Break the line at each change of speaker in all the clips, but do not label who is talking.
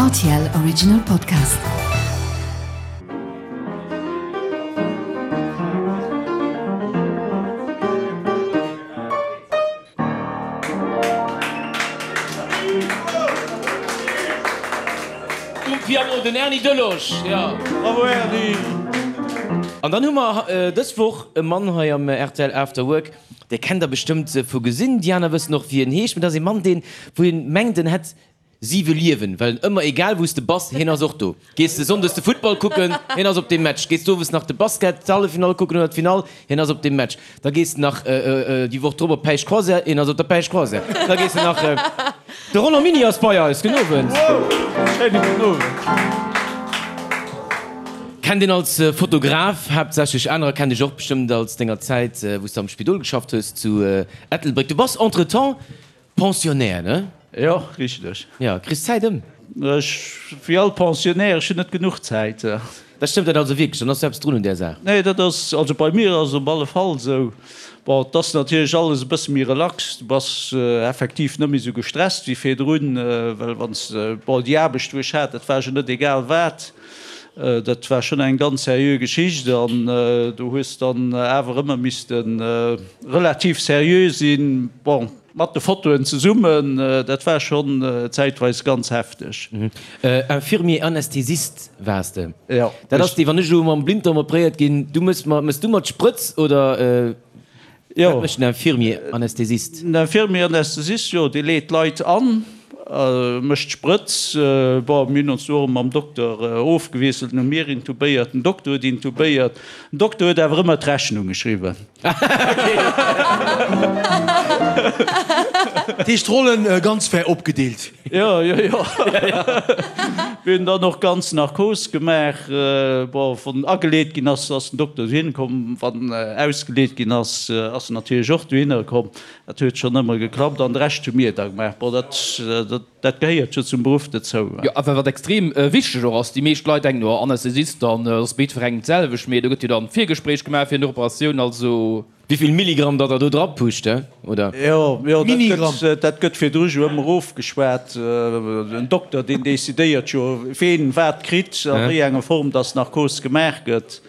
Rtl Original Podcast.
Um Piano den Erny Delosch, jo.
Bravo Erny!
An dann hu mer dës Woch e Mann hei am rtl After Work, Dir kennt der bestëmmt vu gesinn, déi aner wëssen och wéi en heescht, mee dat ass ee Mann deen, wou een mengt en hätt siwe Liewen, well en ëmmer, egal wou s de bass, hien ass och do. Gees de sonndes de Futtball kucken, hien ass op deem Match. Gees de owes nach de Basket, d'Halleffinall kucken oder d'Finall, hien ass op deem Match. Da gees de nach déi Woch drop op d'Päischt-Croisière, hien ass op der Päischt-Croisière. Da gees de nach. De Roland Miny ass bei eis. Gudden Owend.
Schéine gudden Owend.
Kennt een als Fotograf haaptsächlech, anerer kennen dech och bestëmmt als denger Zäit wou s de am Spidol geschafft hues zu Ettelbréck. Du bass entretemps Pensionnaire, ne?
Jo, richteg.
Jo, kriss d'Zäit ëm?
Ech, wéi all Pensionnaire, ech hunn net genuch Zäit.
Dat stëmmt dat also wierklech? Dann ass jo eppes drun un där Saach.
Nee, dat ass, also bei mir ass et op alle Fall esou. Bon, et ass natierlech alles e bësse méi relax, du bass effektiv net méi esou gestresst wéi virdrun, well wann s de, bon, déi Aarbecht wou ech hat, dat war jo net egal wat, dat war schonn eng ganz seriö Geschicht an do hues dann awer ëmmer misste relativ seriö sinn. Bon. Mat de Fotoen zesummen, dat war schonn zäitweis ganz hefteg.
Infirmier Anästhesist waars de?
Jo.
Dat ass dee, wann ech elo mam Blinddarm operéiert ginn, du mëss mer, mëss du mer d'Sprëtz oder wat mécht den Infirmier Anästhesist?
Den Infirmier Anästhesist, jo, dee leet d'Leit an, mécht d'Sprëtz. Bon, mir hunn ons do och mam Dokter ofgewiesselt, hu mir intubéiert, den Dokter huet intubéiert. Den Dokter huet awer ëmmer d'Rechnung geschriwwen.
Dat heescht d'Rollen ganz fair opgedeelt.
Jo, jo, jo. Mir hunn dann och ganz Narkos gemaach. Bon, wann ageleet ginn ass, ass den Dokter dohinner komm. Wann ausgeleet ginn ass, ass en natierlech och dohinner komm. Dat huet schonn ëmmer geklappt. An de Rescht hu mir da gemaach. Bon, dat, dat. Dat gehéiert jo zum Beruff dozou.
Jo, awer wat extrem wichteg och ass, déi meescht Leit denken, oh Anästhesist, dann ass bei jiddwerengem d'selwecht, mee do gëtt jo dann Virgespréich gemaach fir Operatioun, also.
Wéivill Milligramm datt der do dra pusht, he, oder?
Jo, jo, dat gëtt, dat gëtt virdru jo ëmmer ofgeschwat. En Dokter, deen decidéiert jo, ween wat kritt, a wéi enger Form datt Narkos gemaach gëtt.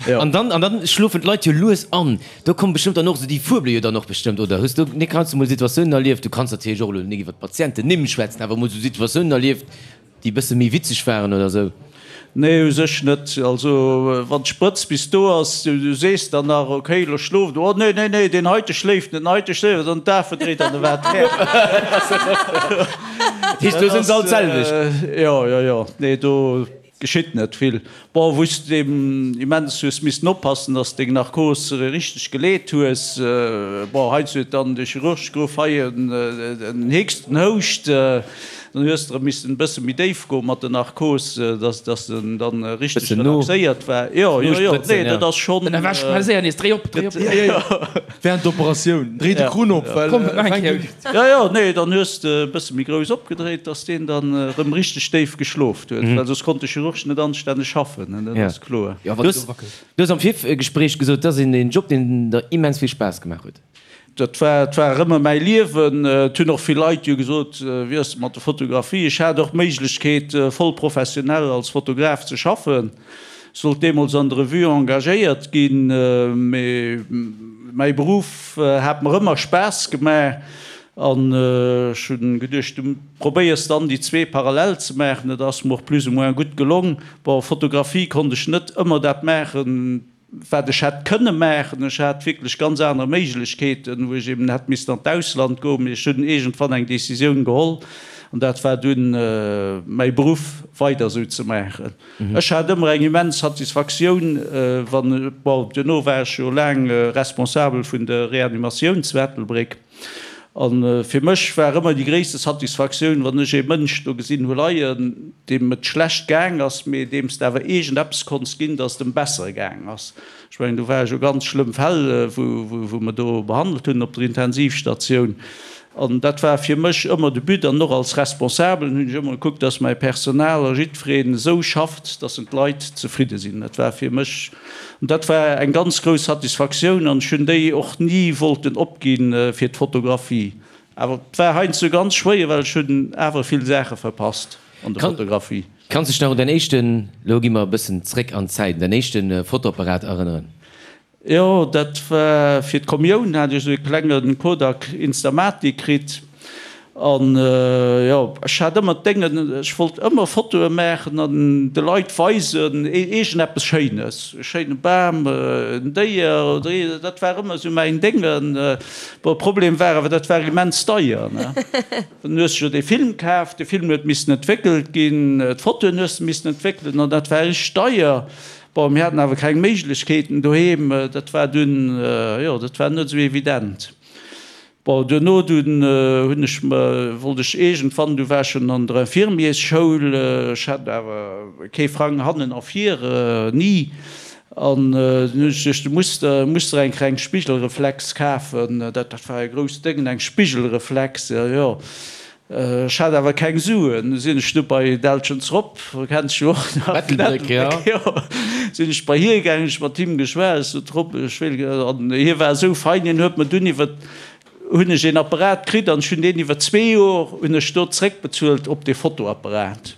Jo. An dann, an dann schlofen d'Leit jo lues an. Do kommen bestëmmt dann och esou déi fuebele jo dann och bestëmmt, oder? Hues du, Nick, heiansdo mol Situatiounen erlieft, du kanns natierlech och elo nik iwwer d'Patientennimm schwätzen, awer mol esou Situatiounen erlieft, déi e bësse méi witzeg waren oder esou?
Nee, u sech net. Also wann d'Sprëtz bis do ass, du sees dann nach, okay, elo schloft, oh nee, nee, nee, deen heite schléift net, den heite schléift net, an d'Afe dréit an de wat fäert.
Dat heescht, do sinn se all d'selwecht?
Jo, jo, jo, nee, do. Geschitt net vill. Bon, wou s de eben immens hues missten oppassen, dass deng Narkos richteg geleet hues. Bon, heiansdo huet dann de Chirurg geruff, hei en Hickst, en Houscht. Dann hues de erëm missten e bësse méi déif goen mat der Narkos, dass dass en dann richteg relaxéiert war. Jo, jo, jo, nee, dat ass schonn.
Dann erwächt schnell séier nees, dréi op, dréi op.
Während der Operatioun, dréi de Krunn op, well e fänkt un.
Jo, jo, nee, dann hues de e bësse méi grouss opgedréit, dass deen dann erëm richteg déif geschlof huet, well soss konnt de Chirurg net anstänneg schaffen, dat ass kloer.
Du hues am Virgespréich gesot, dat ass een Job, deen der immens vill Spaass gemaach huet.
Dat war, et war ëmmer mäi Liewen. Et hunn och vill Leit jo gesot, wéi ass et mat der Fotografie? Ech hat och d'Méiglechkeet, voll professionell als Fotograf ze schaffen. Sollt deemools an der Revue engagéiert ginn, mee mäi Beruff hat mer ëmmer Spaass gemaach an ech hunn geduecht, du probéiers dann déi zwee parallel ze maachen. Dat ass mer och plus ou moins gutt gelong. Bon, Fotografie konnt ech net ëmmer dat maachen, wat ech hätt kënne maachen. Ech hat wierklech ganz aner Méiglechkeeten, wou ech eben hätt missten an d'Ausland goen, mee ech hunn iergendwann eng Decisioun geholl an dat war dunn mäi Beruff weider esou ze maachen. Ech hat ëmmer eng immens Satisfaktioun, wann, bon, duerno war ech jo laang Responsabel vun der Reanimatioun zu Ettelbréck, a fir mech war ëmmer déi gréisste Satisfaktioun, wann ech ee Mënsch do gesinn hu leien, deem et schlecht gaang ass, mee deem s de awer iergendeppes konns ginn, dass et em besser gaang ass. Ech mengen, do ware jo ganz schlëmm Fäll, wou mer do behandelt hunn op der Intensivstatioun. An dat war fir mech ëmmer de But. An och als Responsabelen hunn ech ëmmer gekuckt, dass mäi Personal a jiddwereen esou schafft, dass en d'Leit zefridde sinn. Dat war fir mech, an dat war eng ganz grouss Satisfaktioun. An ech hunn déi och ni wollten opgi fir d'Fotografie. Awer et war heiansdo ganz schwéier, well ech hunn awer vill Saache verpasst. An der Fotografie.
Kanns dech nach un däin éischten, lo gi mer e bëssen zréck an d'Zäit, un däin éischte Fotoapparat erënneren?
Jo, dat war fir d'Kommioun, hat ech esou e klenge Kodak Instamatic kritt. An jo, ech hat ëmmer d'Déngen, ech wollt ëmmer Fotoe maachen an de Leit weisen, iergendeppes Schéines, e schéine Bam, en Déier oder ee, dat war ëmmer esou mäin Déngen. Bon, Problem war awer, dat war immens deier, ne. Dann hues de jo dee Film kaf, de Film huet missen entwéckelt ginn, d'Fotoen hues de missen entwéckelen an dat war richteg deier. Bon, mir haten awer keng Méiglechkeeten doheem, dat war dunn, jo, dat war net esou evident. Bon, duerno dunn hunn ech mer, wollt ech iergendwann, du war ech schonn an der Infirmiersschoul, ech hat awer kee Frang hannen a vir, ni, an dunn hunn ech geduecht, du muss der, muss der eng kleng Spigelreflex kafen, dat war e grousst Déngen, eng Spigelreflex, jo, jo. Ech hat awer keng Suen, du sinn ech du bei Deltschens Rob, kenns jo och nach,
Ettelbréck, jo.
Jo, sinn ech bei hie gaangen, ech mat him geschwat, ech sot, Rob, ech wéilt gär, an hie war esou fein, hien huet mer dunn iwwer, hunn ech een Apparat kritt an ech hunn deen iwwer zwee Jor hunn ech do zréckbezuelt op dee Fotoapparat.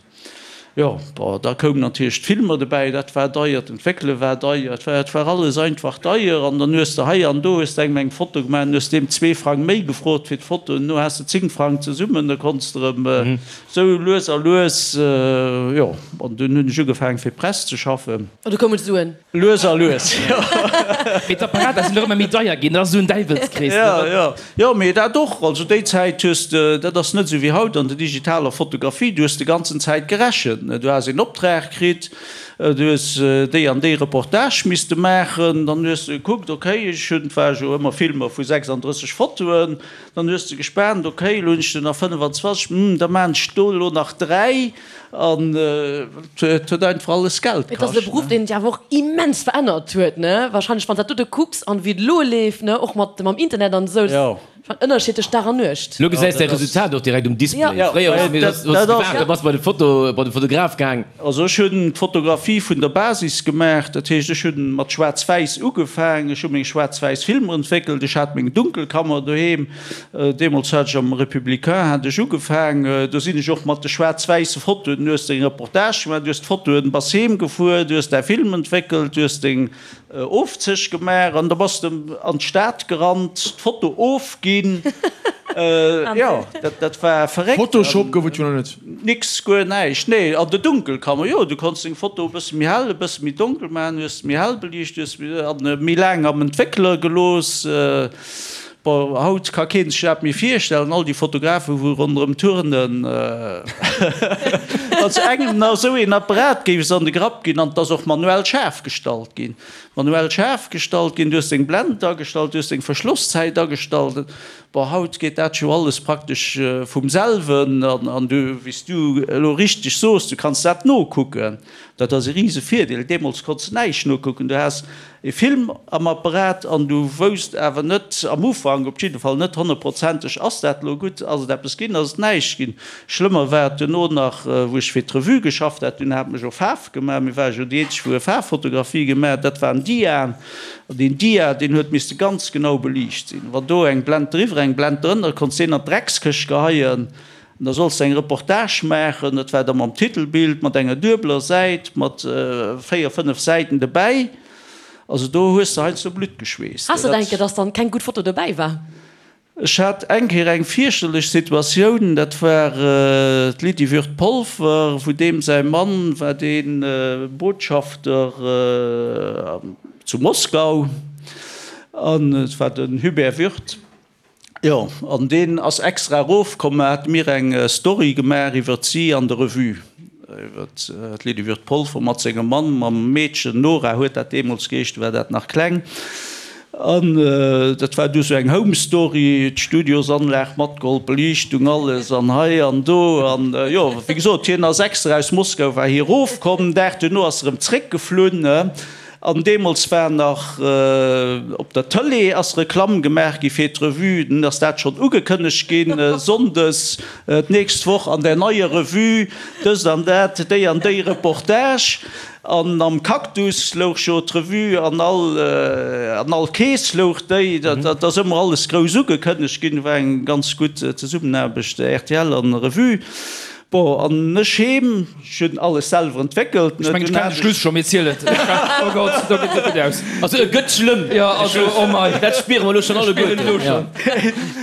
Jo, bon, da koumen natierlech d'Filmer dobäi, dat war deier, d'Entwéckele war deier, et war, et war alles einfach deier. An dann hues de hei an do hues de engem eng Foto gemaach, dann hues de deem zwee Frang méi gefrot fir d'Foto, an no has de 10 Frang zesummen, da konns de erëm esou lues a lues, jo, an dunn hunn ech ugefaangen fir d'Press ze schaffen.
An du koumen d'Suen.
Lues a lues, jo.
Mee d'Apparater sinn och ëmmer méi deier ginn, dat ass esou en Däiwelskrees, ne?
Jo, jo. Jo, mee dat och. Also déi Zäit hues de, dat ass net esou wéi haut an der digitaler Fotografie, du hues de ganzen Zäit gerechent, ne. Du has een Optrag kritt, du hues déi an déi Reportage misste maachen, dann hues de gekuckt, okay, ech hunn, et war jo ëmmer Filmer vu 36 Fotoen, dann hues de gespaant, okay, elo hunn ech der nach 25, hm, da maan ech do elo nach 3. An et huet einfach alles Geld
kascht. Et ass e Beruff, deen sech awer och immens verännert huet, ne? Wahrscheinlech, wann s dat dote kucks an wéi et elo leeft, ne, och mat mam Internet an esou, dat ass en Ënnerscheed tëscht Dag an Nuecht.
Elo gesäis de Resultat och direkt um Display. Fréier hues du gewaart, da bass bei de Foto, bei de Fotograf gaang.
Also ech hunn d'Fotografie vun der Basis gemaach, dat heescht ech hunn mat Schwaarz-Wäiss ugefaang, ech hu meng schwaarz-wäiss Filmer entwéckelt, ech hat meng Dunkelkammer doheem, Deemools hat ech am Républicain hat ech ugefaang, do sinn ech och mat de schwaarz-wäisse Fotoen, du hues deng Reportage gemaach, du hues d'Fotoen, bass heem gefuer, du hues däi Film entwéckelt, du hues deng Ofzéch gemaach an da bass de an d'Stad gerannt, d'Foto ofginn. Jo, dat war verréckt.
Photoshop gouf et jo nach net.
Nix, guer näischt, nee. An der Dunkelkammer, jo, du konns deng Foto e bësse méi hell, e bësse méi donkel maachen, hues se méi hell beliicht, hues se méi laang am Entwéckler gelooss. Bon, haut ka keen sech dat méi virstellen, all déi Fotografen, wou ronderëm turnen, wann se engem nach esou een Apparat géif se an de Grapp ginn, an et ass och manuell schaarf gestallt ginn, manuell schaarf gestallt ginn, du hues deng Blend agestallt, du hues deng Verschlosszäit agestallt. Bon, haut geet dat jo alles praktesch vum selwen, an du, wéi s du elo richteg soos, du kanns dat nokucken, dat ass e rise Virdeel. Deemools konns de näischt nokucken, du has E Film am Apparat an du wousst awer net, am Ufank op jidde Fall net honnertprozenteg, ass dat elo gutt, ass et eppes ginn, ass et näischt ginn. Schlëmmer war et duerno nach, wou ech fir d'Revue geschafft hat, dunn hat mech och Faarf gemaach, mir ware jo déi eenzeg wou e Faarffotografie gemaach hat, dat waren Diaen an deen Dia, deen huet misste ganz genau beliicht sinn. Wann do eng Blend driwwer, eng Blend drënner, konns deen an d'Dreckskëscht geheien. An da solls de eng Reportage maachen, dat war da mam Titelbild, mat enger duebeler Säit, mat véier, fënnef Säiten dobäi. Also do hues de heiansdo Blutt geschweesst.
Has de et eng Kéier, dass dann keng gutt Foto dobäi war?
Ech hat eng Kéier eng fierchterlech Situatioun, dat war d'Lydie Würth-Polfer, wou deem säi Mann war dee Botschafter zu Moskau, an et war den Hubert Würth. Jo, an deen ass extra erofkomm a hat mir eng Story gemaach iwwert si an der Revue, iwwert d'Lydie Würth-Polfer mat sengem Mann, mam Meedchen, Nora huet dat deemools geheescht, du war dat nach kleng. An dat war du sou eng Home Story, d'Studiosanlag matgeholl, d'Beliichtung, alles an hei an do. An jo, wéi gesot, hien ass extra aus Moskau war hie erofkomm, Dag duerno ass e rëm zréckgeflunn. An deemools war nach op der Tëlee ass Reklamm gemaach gi fir d'Revue. Dunn ass dat schonn ugekënnegt ginn, Sonndes d'nächst Woch an der neier Revue dëst an dat, déi an déi Reportage. An am Cactus louch jo d'Revue, an all an all Kees louch déi. Dat ass ëmmer alles grouss ugekënnegt ginn. War eng ganz gutt Zesummenaarbecht rtl an Revue. Bon, an ech heem, ech hunn alles selwer entwéckelt.
Ech mengen, ech kennen de Schluss scho, mee ziel et. Oh Gott, do geet et net gutt aus.
Also e gëtt schlëmm,
Jo, also, oh mei.
Dat spiere mer elo schonn alleguerten.
Elo schonn.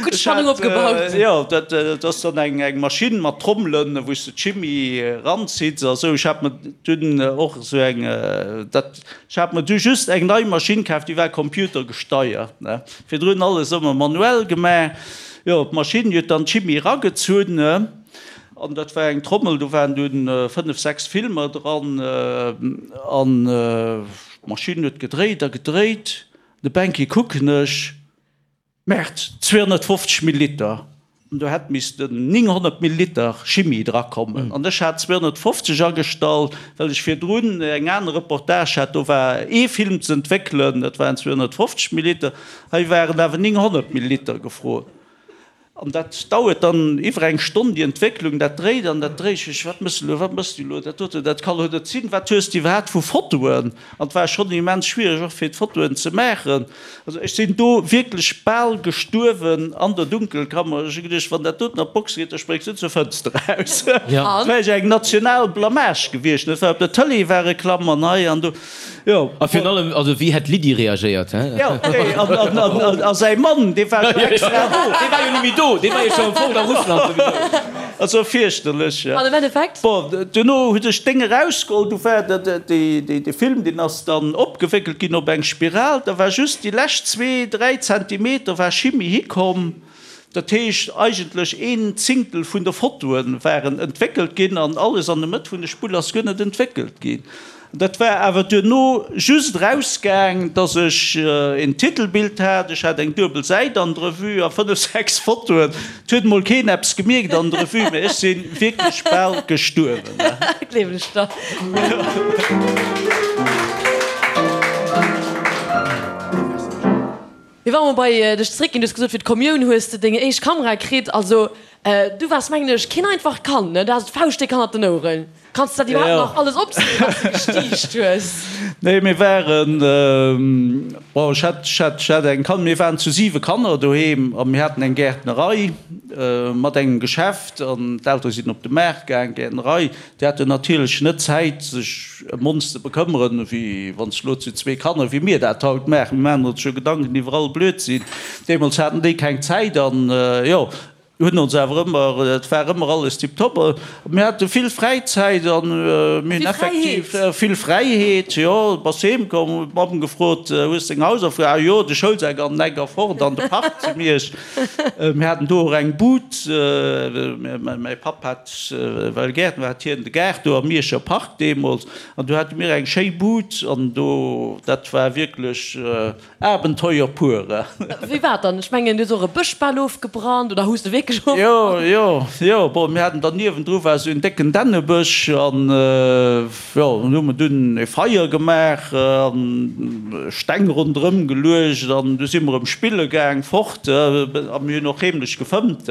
Gutt Spannung opgebaut.
Jo, dat ass dann eng Maschinn mat Trommelen, wou s de d'Chimie eranzitts a sou. Ech hat mer dunn och esou eng, dat, ech hat mer du just eng nei Maschinn kaf, déi war computergesteiert, ne. Virdrun alles ëmmer manuell gemaach. Jo, d'Maschinn huet dann d'Chimie eragezunn, an dat war eng Trommel, do waren dunn 5, 6 Filmer dran, an d'Maschinn huet gedréit a gedréit. De Banky kucken ech, Merde, 250 Milliliter! An do hätt missten 900 Milliliter Chimie drakommen. An ech hat 250 agestallt, well ech virdrun eng aner Reportage hat, do war ee Film ze entwéckelen, dat waren 250 Milliliter. Hei waren awer 900 Milliliter gefrot. An dat dauert dann iwwer eng Stonn, déi Entwécklung, dat dréit an dat dréit. Ech, Wat mëss de elo, wat mëss de elo, dat dote, dat ka lo net sinn, wat hues de iwwerhaapt vu Fotoen? An et war schonn immens schwiereg och fir d'Fotoen ze maachen. Also ech sinn do wierklech bal gestuerwen an der Dunkelkammer. Ech hu geduecht, wann dat doten an d'Box geet, da spréngs du zur Fënster eraus. Dat wär eng national Blamage gewiescht. Dat war op der Tëlee war Reklamm an hei an do. Jo.
A virun allem, also wéi hätt d'Lydie reagéiert, he?
Jo, nee, an, an, an, an, a säi Mann, dee war jo extra do.
Dee war jo ni méi do, dee war jo scho fort a Russland souwisou.
Also fierchterlech, ja.
An am Endeffekt?
Bon, duerno hunn ech d'Déng erausgeholl, du war dat, déi, déi, de Film, deen ass dann opgewéckelt ginn op eng Spiral, da war just déi lescht zwee, dräi Zentimeter war Chimie hikomm. Dat heescht, eigentlech een Zingtel vun de Fotoe waren entwéckelt ginn an alles an der Mëtt vun de Spull ass guer net entwéckelt ginn. Dat war awer duerno just erausgaang, dass ech een Titelbild hat, ech hat eng duebel Säit an der Revue a fënnef, sechs Fotoen. Et huet emol keen eppes gemierkt an der Revue, mä ech si wierklech bal gestuerwen.
Gleewen ech der. Mee wa mer bei dech zeréckginn, du hues gesot, fir d'Kommioun hues de deng éischt Kamera kritt. Also du waars, mengen ech, keen einfacht Kand, ne? Du haas d'Fauscht déck hannert den Oueren. Kanns de dat iwwerhaapt nach alles opzielen, wat s de gestiicht hues?
Nee, mir waren, bon, ech hat, ech hat, ech hat eng Kan, mir waren zu siwe Kanner doheem a mir haten eng Gäertnerei mat engem Geschäft an d'Eltere sinn op de Maart gaang, Gäertnerei. Déi haten natierlech net Zäit, sech ëm ons ze bekëmmeren, wéi wann s elo zu zwee Kanner, wéi mir dat haut maachen. Mir maachen ons jo Gedanken iwwer all Blödsinn. Deemools haten déi keng Zäit an, jo, hunn ons awer ëmmer, et war ëmmer alles tiptop. Mir hate vill Fräizäit an mir hunn effektiv vill Fräiheet, jo. Bass heem komm, huet d'Mamm gefrot, Hues deng Hausaufgaben? Ah jo, de Schoulsak an den Eck a fort an de Park zu Miersch. Mir haten do och eng Bud. Mäi Papp hat, well Gäertner war, hat hien de Gaart do am Mierscher Park deemools. An do hate mir eng schéi Bud an do, dat war wierklech Abenteuer pur.
Wéi war et dann? Ech mengen, du hues och e Bësch bal ofgebrannt, oder hues de wierklech ofgebrannt?
Jo, jo, jo. Bon, mir haten dann niewendru war esou en décken Dännebësch an, Jo, dann hu mer dunn e Feier gemaach an Steng ronderëm geluecht an du si mer erëm spille gaang fort a mir hunn och heemlech gefëmmt.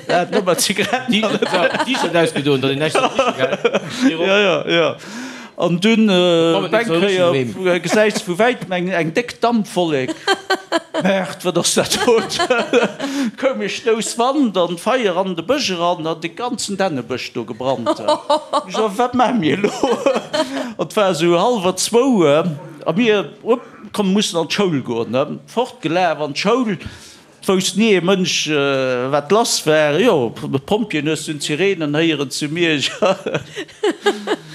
Dat net mat Zigaretten.
T-Shirt ausgedoen, datt een näischt soll riche, gell?
Jo, jo, jo. An dunn op eng Kéier gesäis de vu wäitem eng déck Dampwollek. Merde, wat ass dat do? Koum e Stouss Wand an d'Feier an de Bësch eran an de ganzen Dännebësch do gebrannt. Ech sot, Wat maache mir elo? An et war esou hallwer zwou a mir, Upp, komm, mussen an d'Schoul goen. Fortgelaf an d'Schoul. Et wousst ni ee Mënsch, wat lass war. Jo, d'Pompjeeën hues dunn d'Sirenen héieren zu Miersch.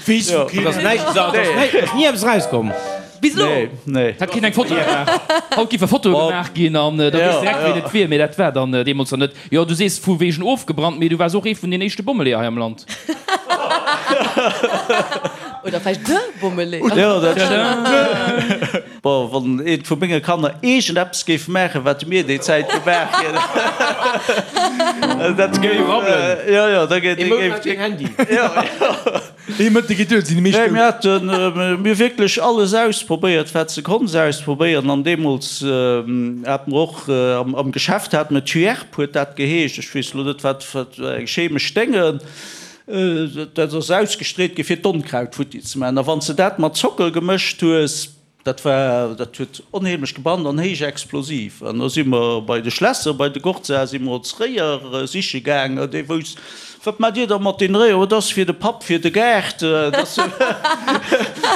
Weess vu keen. Et ass näischt, et ass ni eppes erauskomm.
Bis elo?
Nee, nee.
Hat keen eng Foto gemaach? Haut géife Fotoe gemaach ginn an da weess direkt, wien et wier. Mee dat war dann deemools nach net. Jo, du sees vu wegen ofgebrannt, mee du waars och ee vun den éischte Bommeleeër hei am Land.
Oder vläicht de Bommeleeër.
Jo, dat stëmmt. Bon, wann eent vu menge Kanner iergend eppes géif maachen, wat mir déi Zäit gemaach hunn, dat géif
rabbelen.
Jo, jo, da géif.
Ee Mount laang keen Handy.
Jo, jo.
Ee Mëtte geet duer, et sinn déi meescht
Nee,
dout.
mir haten, mir hu wierklech alles ausprobéiert, wat s de konns ausprobéieren. An deemools hate mer och am Geschäft hate mer Tuerp huet dat geheescht, ech weess elo net, wat, wat eng chemesch Dénge. Dat ass ausgestreet gi fir d'Onkraut futti ze maachen. A wann s de dat mat Zocker gemëscht hues. Dat war, dat huet onheemlech gebrannt an héich explosiv. An da si mer bei de Schlässer, bei de Gorza si mer ons Réier siche gaangen. Dee wousst, Wat maacht Dir da mat den Réier? Oh, dat ass fir de Papp, fir de Gaart, dat ass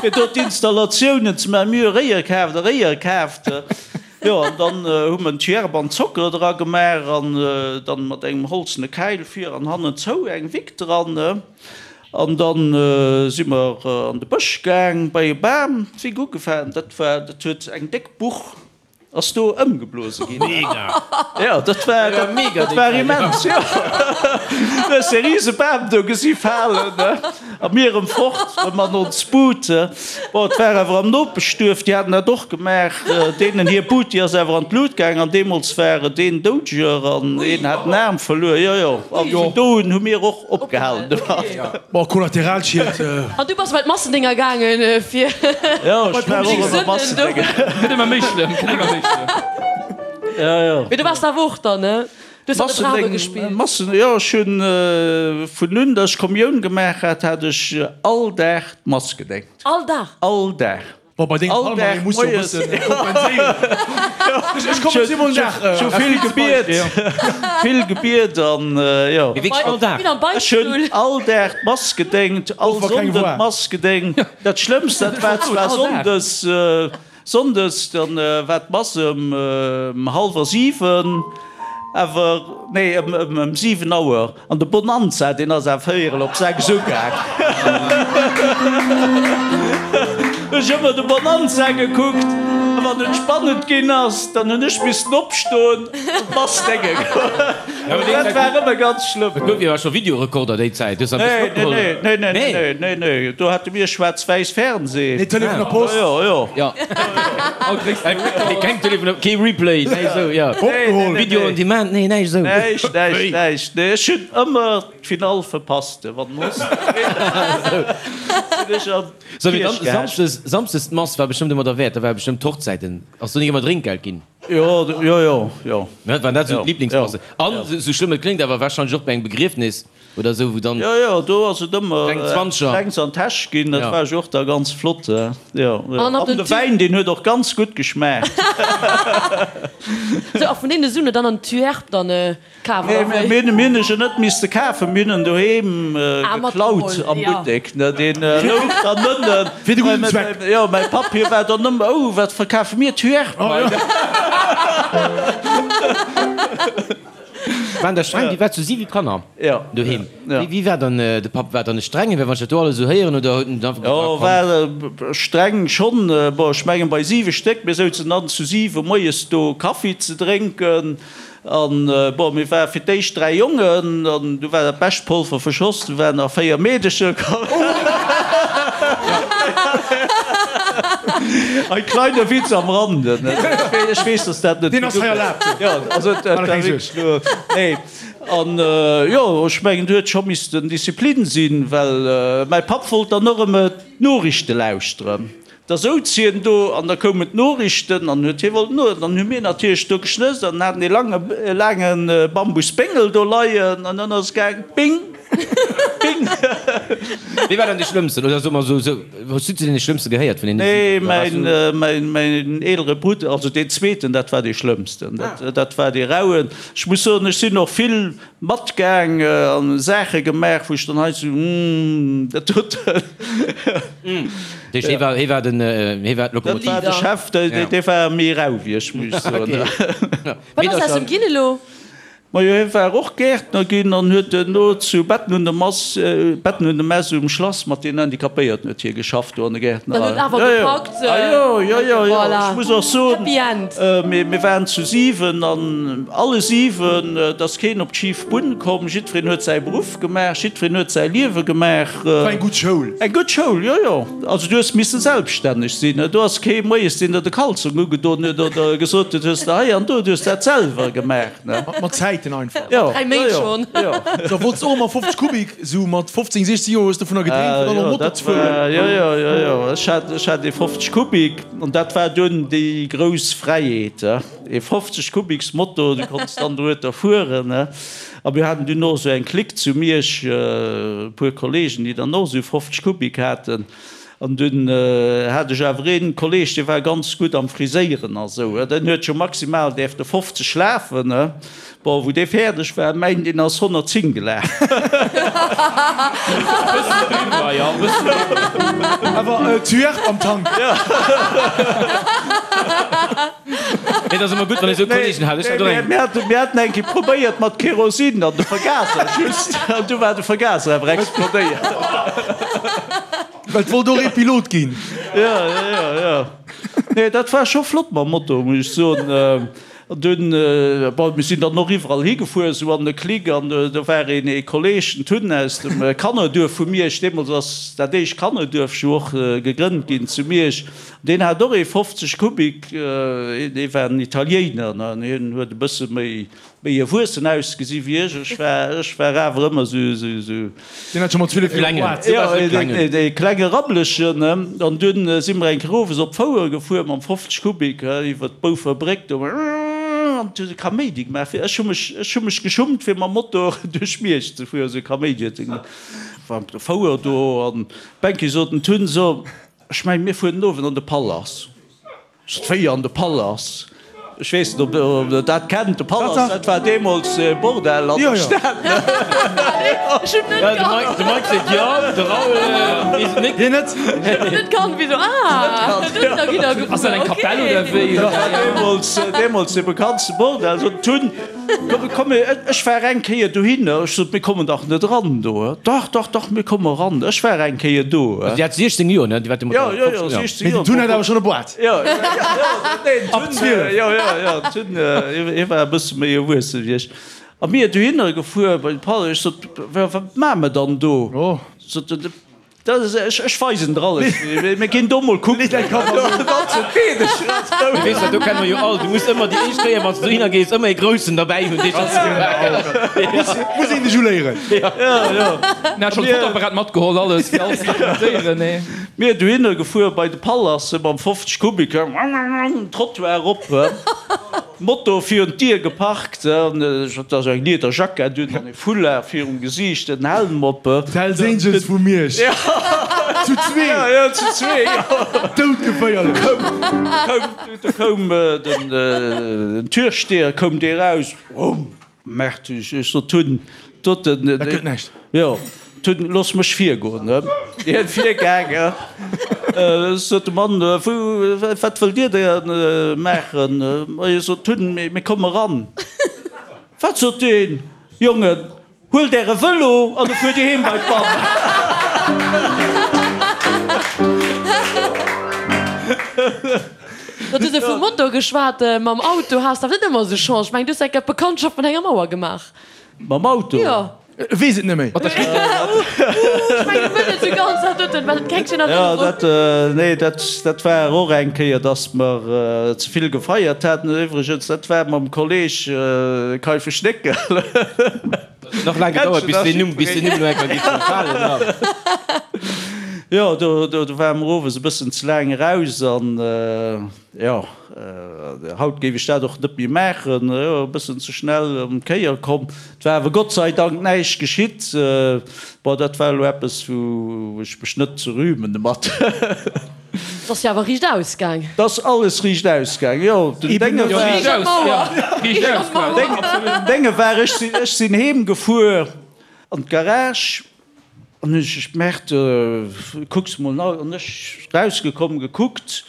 fir do d'Installatiounen ze maachen. Mir hu Réier kaaft a Réier kaaft. Jo, an dann hu mer en Tierp an Zocker dra gemaach an dann mat engem holzene Käil vir an hannen zou eng Wick dran. An dann si mer an de Bësch gaang, bei e Bam, d'Wick ugefaangen. Dat war, dat huet eng déck Buch ass do ëmgeblose ginn.
Mega!
Jo, dat war, dat,
mega,
dat war immens, jo. Du hues dee rise Bam do gesi falen, ne? A mir erëm fort, erëm an ons Bud. Bon, et war awer am Nopeschduerf, déi haten dat och gemaach. Deenen hir Bud, déi ass awer an d'Lut gaang an deemools war et een Doudeger an een hat den Aarm verluer. Jo, jo. A vun do un hu mir och opgehalen domat.
Bon, Kollateralschied.
An du bass bei d'Massendinger gaangen, fir.
Jo, ech war och ëmmer Massendinger.
Gëtt ëmmer méi schlëmm, gëtt ëmmer méi schlëmm.
Jo, jo.
Mee du waars awer och dann, ne? Du hues an de Bravo gespillt.
Massen, jo, ech hunn vun un, datt ech Kommioun gemaach hat, hat ech all Dag d'Mass gedéngt.
All Dag?
All Dag.
Bon, bei dengem
All
Palmarès
Dag
muss jo e
moies.
bëssen kompenséieren. Ech, ech kommen zwee mol nach.
Ech hu vill gebiet, vill gebiet an jo.
Mee wierklech all Dag?
Wéi am
Ech hunn
Beichtstull.
all Dag d'Mass gedéngt, all
Och wa keng
Sonnden
war.
d'Mass gedéngt. Dat Schlëmmst, dat war zwar sonndes, sonndes, dann war d'Mass ëm hallwer 7, awer, nee, ëm 7 Auer. An de Bonanza, deen ass awer véierel op 6 ugaang. Ech ëmmer de Bonanza gekuckt, a wann et spannend ginn ass, dann hunn ech missen opstoen an d'Mass dénge goen. Dat war ëmmer ganz schlëmm.
Et gouf jo awer scho Videorekorder déi Zäit, hues der e bëssen opgeholl?
Nee, nee, nee, nee, nee, nee, do hate mir schwaarz-wäiss Fernseh.
Nee, Telefon a Post.
Jo, jo.
Jo. Keng Telefon, kee Replay, näischt esou, jo.
Opgeholl.
Video on demand, nee, näischt esou.
Näischt, näischt, näischt. Nee, ech hunn ëmmer d'Finall verpasst, wann den Host sinn ech an
So, mee
d'Kierch
dann
gehecht.
Samschdes, Samschdes d'Mass war bestëmmt ëmmer derwäert, da war bestëmmt d'Hochzäiten, ass do nik ëmmer Drénkgeld ginn?
Jo, jo, jo, jo.
Ne, waren dat esou
Jo,
d'Liblingsmassen?
jo.
An, esou schlëmm et kléngt, awer warscheinlech och bei engem Begriefnis. Oder esou, wou dann.
Jo, jo, do ass et ëmmer
Kleng Zwanzeger.
Klengs an d'Täsch ginn, dat
Ja.
war jo och da ganz flott. Jo, jo.
An
An de Wäin, deen huet och ganz gutt geschmaacht.
Sou, a vun deene Suen dann an d'Tuerp dann kaf, oder wéi?
Mir hunn, mir hunn e jo net misste kafen, mir hunn en doheem
Ah,
geklaut
matgeholl,
am
ja.
Buttek, ne, deen louch dann ënnen.
Fir de gudden Zweck.
Jo, mäi Papp, hie war dann ëmmer, Oh, wat verkafe mir? Tuerp hei.
Waren der streng? Dir waart zu 7 Kanner doheem. Wéi war dann de Papp? War dann e strengen? Well wann ech dat do alles esou héieren, oder huet en einfach
Jo,
gesot, komm.
war streng schonn. Bon, ech mengen bei 7 Stéck, mir souzen dann zu 7 moies do Kaffi ze drénken. An bon, mir ware fir d'éischt 3 Jongen an du war dat bescht Polver verschoss, du waren nach 4 Meedecher komm. Ein kleiner Witz am Rande, ne? Ech weess, dass dat net.
Deen ass hei erlaabt.
Jo, also dat war wierklech lo. Nee. An jo, ech mengen, do huet scho missten Disziplin sinn, well mäi Papp wollt dann och ëmmer d'Noriichte lauschteren. Da souz hien do an da koumen d'Noriichten an huet hie wollten no. Dann hu mir natierlech do geschnësst an haten ee lange, laange Bambusbéngel do leien an dann ass et gaang, Bing! Bing!
Wee war dann dee Schlëmmsten? Oder soe mer esou, esou, hues du zu deene Schlëmmste gehéiert vun deene
Nee,
7? Oder waars
mäin,
du.
mäin, mäin eelere Brudder, also deen zweeten, dat war dee Schlëmmsten. Dat, dat war dee Rauen. Ech muss soen, ech sinn och vill matgaang an Saache gemaach, wou ech dann hei sou, Hm, dat doten.
Dee, hie war, hie war den, hie war
Dat war
d'Lokomotiv.
de Chef, dee, dee war méi rau wéi ech, muss ech soen.
Wat ass aus em ginn elo?
Majo, hie war och Gäertner ginn an huet duerno zu Betten un der Mass, Betten un der Mess um Schlass mat den Handicapéierten huet hie geschafft do an der Gäertnerei.
Dann huet awer
Jo, jo.
gepackt.
Ah jo, jo, jo, jo.
Voilà.
Ech muss och soen,
Happy End.
mir, mir waren zu 7 an alle 7, et ass keen op d'schif Bunn komm, jiddwereen huet säi Beruff gemaach, jiddwereen huet säi Liewe gemaach.
War eng gutt Schoul.
Eng gutt Schoul, jo, jo. Also du hues misse selbststänneg sinn. Do ass kee moies, deen der de Kalzong ugedon huet oder gesot huet, hues de hei an do, du hues dat selwer gemaach.
Mat Zäiten einfach.
Jo,
Dräi Méint schonn.
Jo.
Da wollts och ëmmer 50 Kubik, sou mat 15, 16 Joer hues de dovunner gedreemt, fir dann och Motor ze fueren.
Jo, jo, jo, jo. Ech hat, ech hat ee 50 Kubik an dat war dunn déi grouss Fräiheet, ee 50 Kubiks Motor, du konns dann dorueter fueren. A mir haten dunn och esou eng Clique zu Miersch, e puer Kollegen, déi dann och esou 50 Kubik haten. An dunn hat ech awer een Kolleg, dee war ganz gutt am Friséieren a sou, den huet scho maximal däerfte 50 lafen. Bon, wou dee fäerdeg war, mäin, deen ass 110 gelaf.
Bëssen driwwer, jo, bëssen driwwer.
Awer Tuerk am Tank.
Nee, dat ass ëmmer gutt, wann ee sou Kollegen hat. Ech hat och eng.
Mir haten eng Kéier probéiert mat Kerosin an de Vergaser just, an du war de Vergaser awer explodéiert.
Well et wollt och ee Pilot ginn.
Jo, jo, jo. Nee, dat war scho flott mam Moto, muss ech soen. An dunn, bon, mir sinn dann och iwwerall higefuer, esou an de Clique, an do war een ee Kolleg, den Tun aus dem Kannerduerf vu Miersch, deemools ass dat éischt Kannerduerf jo och gegrënnt ginn zu Miersch, deen hat och ee 50 Kubik, dee war en Italiéiner, an hien huet e bësse méi Méi erwuessen ausgesi wéi ech. Ech war, ech war awer ëmmer sou, sou, sou.
Deen hat scho mat 12 Joer
Boîte. Jo, dee klenge Rabbelechen. An dunn si mer eng Kéier owes op d'Fouer gefuer mam 50 Kubik iwwer d'Boufer Bréck do. An et huet e Kaméidi gemaach. Ech hu mech, ech hu mech geschummt fir mam Motor duerch Miersch ze fueren, sou e Kaméidi huet e gemaach. War op der Fouer do an d'Bänki sot den Tun, So, ech mengen, mir fueren den Owend an de Palace. Wéi an de Palace? Ech weess net, ob Der dat kennt, de Palace, dat war deemools e Bordell an der Stad.
Ech hunn net kannt.
De Mike seet jo, de Raoul weess et net.
Hien net.
Ech hunn net kannt, wéi sou, ah, dohinner gitt der gefuer,
Ass dat eng Kapell oder wéi?
Dat war deemools, deemools de bekanntste Bordell. Sot d'Tun, Komm, komm, ech war eng Kéier dohinner. Ech sot, Mir kommen dach net eran do. Dach, dach, dach, mir komme eran. Ech war eng Kéier do.
Also Dir hat 16 Joer, ne? Dir waart
deemools
Jo, jo, jo, 16 Joer. Mee den Tun hat awer schonn e Boîte.
Jo, jo, nee, den Tun, jo, jo, jo, den Tun, hie war e bësse méi erwuesse wéi ech. A mir dohinner gefuer bei de Palais. Ech sot, Wat maache mer dann do? Sot en, Dat ass, ech, ech weisen der alles. Mir ginn do mol kucken.
Weess dat, do kenne mer jo all. Du muss ëmmer déi éischt Kéier, wann s du dohinner gees, ëmmer ee Groussen derbäi hunn, dee schonn.
Muss een dech uléieren.
Jo, jo.
En hat schonn d'Fotoapparat matgeholl, alles, fir alles ze dokumentéieren, nee.
Mir dohinner gefuer bei de Palace mam 50 Kubik, Trottoir erop. Moto virun d'Dier geparkt, an ech hat da sou eng lieder Jackett un an e Foulard virum Gesiicht, en Helm op.
D'Hells Angels vu Miersch. Zu zwee.
Ja, ja, zu zwee, jo.
Doudgeféierlech.
Koum, do koum den Türsteher, koum dee raus, Rumm! Merkt ech, ech sot hunn doten.
Dat gëtt näischt.
Jo, hunn, looss mech virgoen, ne? Hien virgaangen, sot de Mann, wou, wat wëllt Dir da maachen? Ma hie sot hunn, mir komme ran. Wat, sot deen, Jongen, huelt Äre Vëlo an da fuert Dir heem bei d'Mamm.
Du hues jo vum Motor geschwat. Mam Auto has de awer net ëmmer esou Chance. Ech mengen, du hues eng Kéier d'Bekanntschaft mat enger Mauer gemaach.
Mam Auto?
Jo.
E weess et net méi.
Ech mengen net esou ganz, dat doten, well et keng schéin
Jo,
Erënnerung.
dat, nee, dat, dat war och eng Kéier, dass mer ze vill gefeiert haten. Iwwregens, dat war mam Kolleg Kaifesch Néckel.
Nach laang gedauert, bis deen Numm, bis deen Numm elo eng Kéier géif falen, ja.
Jo, do, do, do ware mer owes e bëssen ze laang eraus an, jo, haut géif ech dat och net méi maachen, jo, e bëssen ze schnell ëm d'Kéier komm. Et war awer Gott sei Dank näischt geschitt. Bon, dat war elo eppes, wou ech mech net ze rühmen domat.
Et ass jo awer riicht ausgaang.
Et ass alles riicht ausgaang, jo. Den Dénge war.
Riicht aus, jo. Riicht aus, quasi.
Den Dénge war, ech sinn, ech sinn heem gefuer an d'Garage an hunn ech gemerkt, kucks mol no, an ech rausgekomm, gekuckt,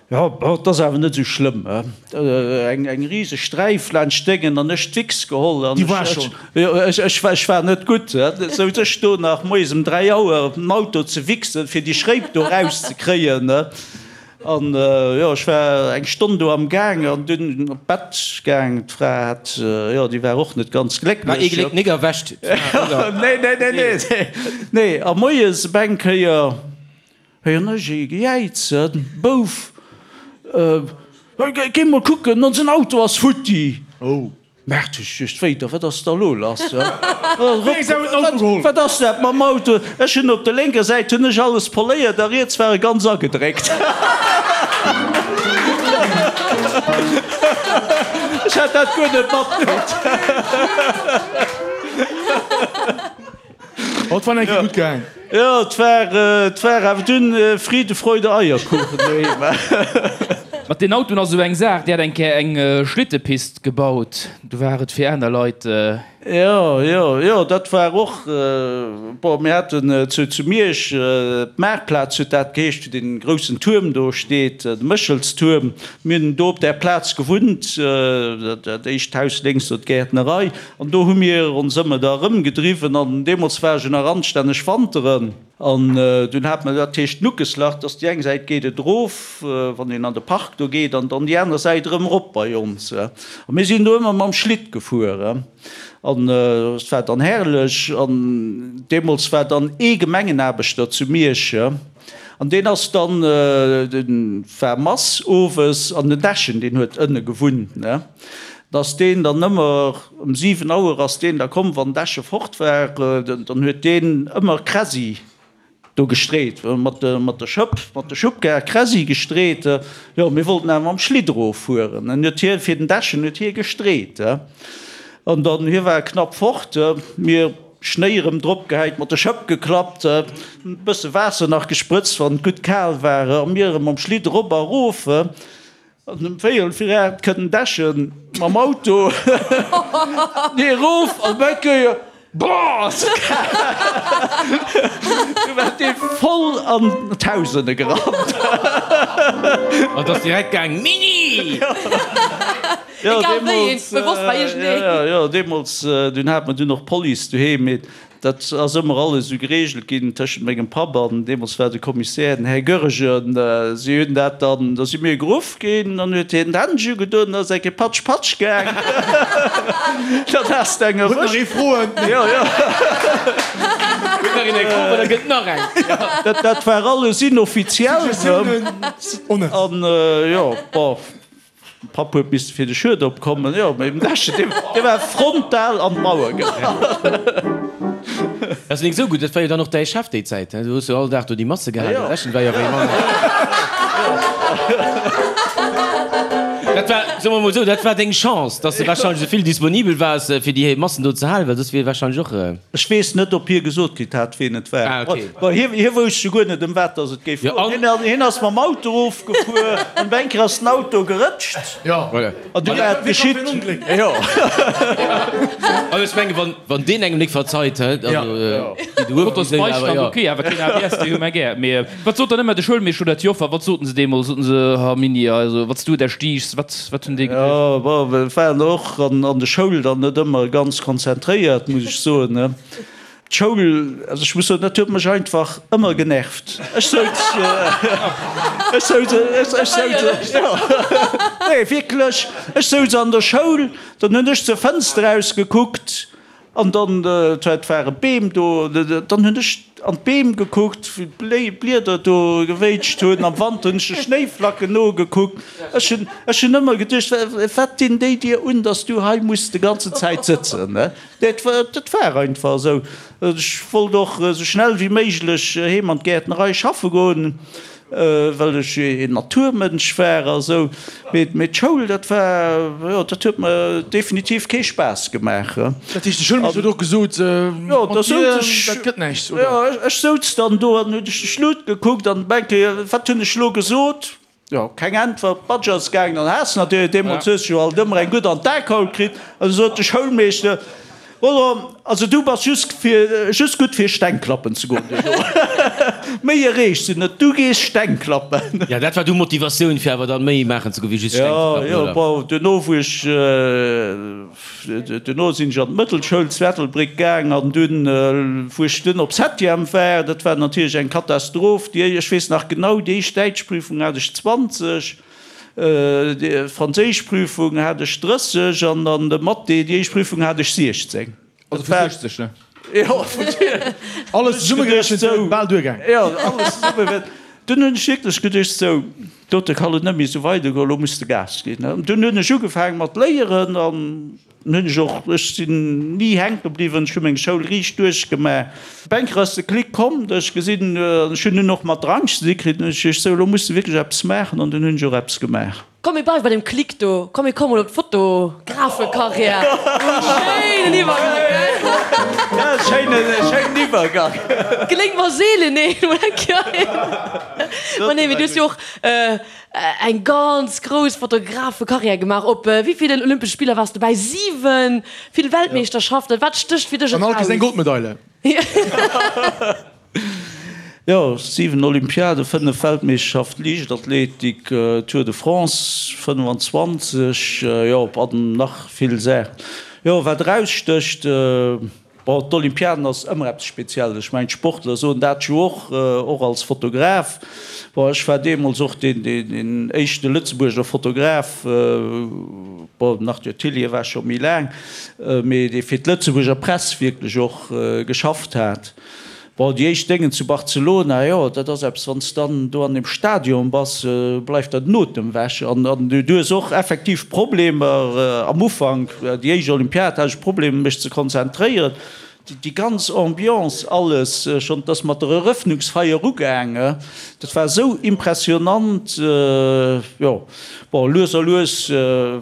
jo, bon, et ass awer net esou schlëmm, he. Eng, eng riseg Sträif laanscht Déngen an ech d'Wichs geholl an
Déi war
ech,
schonn.
Jo, ech, ech war, ech war net gutt, he. Souz ech do nach moies um 3 Auer op den Auto ze wichsen, fir déi Schréip do rauszekréien, he. An, jo, ech war eng Stonn do am Gaang an dunn op d'Bett gaang. D'Fra hat, jo, déi war och net ganz
War ee
glécklech.
Gléck nik erwächt, d'Fra, oder?
Nee, nee, nee, nee, nee. A moies op eng Kéier héieren ech ee gejäizen, Bouf, géi mol kucken, onsen Auto ass futti! Merkt ech just wéider, wat ass da lo lass? Wat ass dat mam Auto? Ech hunn op der lénker Säit hunn ech alles poléiert a riets war e ganz agedréckt. Ech hat dat guer net matkritt.
Oh, et war eng Kéier gutt gaang.
Jo, et war, et war awer dunn Friede, Freude, Eierkuchen doheem.
Mat den Autoen ass esou eng Saach, Dir hat eng Kéier eng Schlittepist gebaut, du war et fir aner Leit.
Jo, jo, jo, dat war och, bon, mir haten zu, zu Miersch d'Maartplaz huet dat geheescht, wou dee groussen Tuerm do steet, de Méchelstuerm. Mir hunn do op där Plaz gewunnt, dat éischt Haus lénks do, d'Gäertnerei, an do hu mir ons ëmmer da erëmgedriwwen an deemools war ech jo nach anstänneg wanteren. An dunn hat mer, dat heescht Nuckeslach, dass déi eng Säit geet et erof, wann een an de Park do geet, an dann déi aner Säit erëm erop bei ons. A mir sinn do ëmmer mam Schlitt gefuer. An et war dann herrlech. An deemools war dann ee Gemengenaarbechter zu Miersch, an deen ass dann, dee war Mass owes, an den Dechen, deen huet ënne gewunnt, ne. Da ass deen dann ëmmer, ëm 7 Auer ass deen da komm, wann d'Äsche fort war, dann huet deen ëmmer Kräsi do gestreet, mat der Schëpp, mat der Schubkar Kräsi gestreet. Jo, mir wollten awer mam Schlitt eroffueren. Dann huet hie fir den Dechen huet hie gestreet. An dann, hie war knapp fort, mir Schnéi erëm drop gehäit, mat der Schëpp geklappt, e bësse Waasser nach gesprëtzt, wann et gutt kal war, a mir erëm mam Schlitt erop a erof. An um véierel vir 8 kënnt den Dechen mam Auto nee erof an op eng Kéier, Boah, ass et kal! Du war dee voll an d'Haus ënne gerannt.
An et ass direkt gaang, Mini!
Jo,
Egal wéi een, bewosst war iergendeen.
Jo, jo, deemools, dunn hat mer dunn och d'Police doheem, mee Dat ass ëmmer alles esou geregelt ginn tëschent mengem Papp an, deemools war de Kommissär den Här Goergen. Si hunn dat dann, da si mir geruff ginn, dann huet hien d'Händsch ugedoen, da ass eng Kéier patsch, patsch gaang. Dann has de eng
Huet nach
erwëscht.
ee Froen?
Jo, jo.
Huet nach een eng Fro, well da gëtt nach eng.
Dat, dat war alles inoffiziell.
Suggestiounen honnête.
An, jo, bon. Papp huet misste fir de Schued opkommen, jo, mee den Dechen, dee, dee war frontal an d'Mauer gerannt.
Dat ass nik esou gutt, dat war jo dann och däi Chef déi Zäit, he? Du hues jo all Dag do déi Masse gehalen, den Dechen war jo wéi Mann. Dat war, soe mer mol esou, dat war deng Chance, dass de warscheinlech esou vill disponibel waars, fir déi Massen do ze halen, well soss wier warscheinlech och.
Ech weess net, ob hie gesot kritt hat, ween et war.
Ah, okay.
Bon, hie, hie wousst jo guer net, ëm wat dass et géif
Jo,
goen.
an.
Hien, hien ass mam Auto erofgefuer, an op eng Kéier ass den Auto gerëtscht.
Jo.
Voilà.
An du war et
Wee kann
geschitt.
fir en Ongléck?
Jo.
An ech mengen, wann, wann deen engem nik verzeit, hä, also, déi du
Fotos
hues, awer
Beistand,
jo.
ok, awer keen ABS, déi hu mer gär. Mee wat sot dann ëmmer de Schoulmeeschter oder d'Joffer? Wat soten se deemools? Soten se, Ha Mini, also wat s du der stiichs? Wat, wat hunn déi geduecht?
Jo, bon, wir waren och an, an der Schoul dann net ëmmer ganz konzentréiert, muss ech soen, ne. D'Schoul, also ech muss soen, dat huet mech einfach ëmmer genervt. Ech souz, ech souz, ech souz, jo, nee, wierklech, ech souz an der Schoul, dann hunn ech zur Fënster ausgekuckt an dann, et ware Beem do, dann hunn ech an d'Beem gekuckt, wéi d'Blieder do gewéitscht hunn, am Wand hunn ech de Schnéiflacken nogekuckt. Ech hunn, ech hunn ëmmer geduecht, wat dinn déi dir un, dass du hei muss de ganzen Zäit sëtzen, ne? Dat war, dat war einfach esou. Ech wollt och esou schnell wéi méiglech heem an d'Gäertnerei schaffe goen, well ech een Naturmënsch war a sou. Mee, mee d'Schoul, dat war, jo, dat huet mer definitiv kee Spaass gemaach.
Dat heescht, de Schoulmeeschter huet och gesot,
Jo, da
mat
souz
dir,
ech,
dat gëtt näischt, oder?
jo, ech souz dann do an hunn ech de Schlutt gekuckt an denke, wat hunn ech elo gesot? Jo, keng Äntwert. D'Badge ass gaangen an Haass natierlech. Deemools hues de jo alt ëmmer eng gutt an d'Akaul kritt. An du sot de Schoulmeeschter, Voilà, also du bass just fir, just gutt fir Steng klappen ze goen duerno. Méi erreechs du net, du gees Steng klappen.
Ja, dat war du Motivatioun fir awer dann méi maachen ze goen wéi just Steng ze klappen,
Jo, jo,
oder?
bon, duerno wou ech, Duerno sinn ech an d'Mëttelschoul zu Ettelbréck gaang an dunn, wou ech dunn op Septième war, dat war natierlech eng Katastroph. Déi, ech weess nach genau, déi éischt Däitschprüfung hat ech 20, déi Franséischprüfung hat ech 30 an an de Mathé, déi éischt Prüfung hat ech 16.
Also vu 60, ne?
Jo, vu
Alles zesummegerechent wier et bal duergaang.
Jo, alles zesumme. Dunn hunn ech wierklech geduecht, sou, dote kann et net méi esou weidergoen, elo muss de Gas ginn. An dunn hunn ech ugefaange mat léieren an dunn hunn ech och, ech sinn ni hänke bliwwen, ech hu meng Schoul riicht duerchgemaach. Op eng Kéier ass de Klick komm, datt ech gesinn, an ech hunn dunn och mat Drang ze di kritt, hunn ech geduecht, sou, elo muss de wierklech eppes maachen an dunn hunn ech och eppes gemaach.
Komm mir bleiwe bei dem Klick do, komm mir kommen op d'Fotografekarriär. Schéinen Iwwergang, gell?
Schéinen Iwwergang.
Geléngt mer seelen een, mol eng Kéier een. Ma nee, mee du hues jo och eng ganz grouss Fotografekarriär gemaach. Op wéi villen Olympesche Spiller waars du dobäi? 7! Vill Weltmeeschterschaften. Wat stécht fir dech
An all
eraus?
Kéiers eng Goldmedaile.
Jo, 7 Olympiaden, 5 Weltmeeschterschaften Liichtathletik, Tour de France 25, jo, an nach vill Saachen. Jo, wat erausstécht, bon, d'Olympiaden ass ëmmer eppes Spezielles. Ech mengen, d'Sportler soen dat jo och, och als Fotograf. Bon, ech war deemools och deen éischte Lëtzebuerger Fotograf, bon, den Arthur Tillye war scho méi laang, mee dee fir d'Lëtzebuerger Press wierklech och geschafft hat. Bon, déi éischt Déngen zu Barcelona, jo, dat ass eppes, wann s dann do an deem Stadion bass, bleift der den Otem wech. An du hues och effektiv Problemer am Ufank, déi éischt Olympiad hat ech Problemer mech ze konzentréieren. Déi ganz Ambiance, alles, schonn, et ass mat der Erëffnungsfeier ugaange, dat war esou impressionant, jo. Bon, lues a lues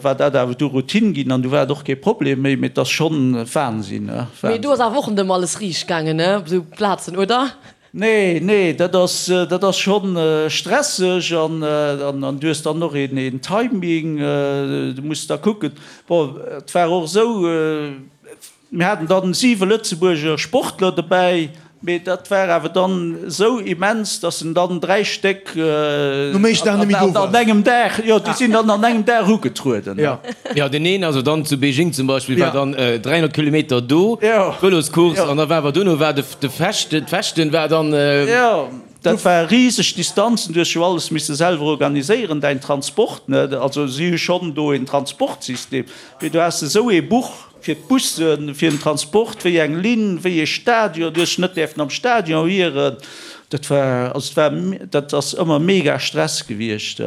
war dat awer du Routine ginn an du war et och kee Problem méi, mee et ass schonn Wahnsinn, ne?
Mee do ass awer och net ëmmer alles riicht gaangen, ne, op esou Plazen, oder?
Nee, nee, dat ass, dat ass schonn stresseg an an du hues dann och een een Timing, du muss da kucken. Bon, et war och esou, Mir haten dann 7 Lëtzebuerger Sportler dobäi, mee dat war awer dann esou immens, dass en dann 3 Stéck an engem Dag, jo, déi sinn dann an engem Dag ugetrueden.
Jo, deen een, also dann zu Beijing zum Beispill, war dann 300 Kilometer do, d'Vëloscourse, an da war awer duerno war de Fechten, d'Fechten war dann.
Jo, dat war riseg Distanzen, du hues jo alles misse selwer organiséieren, däin Transport, ne, also si hu schonn do een Transportsystem, mee du has esou ee Buch. Fir d'Bussen, fir den Transport, wéi eng Linn, wéi ee Stadion, du hues dech net däerfen am Stadion ieren. Dat war, also et war, dat ass ëmmer mega Stress gewiescht.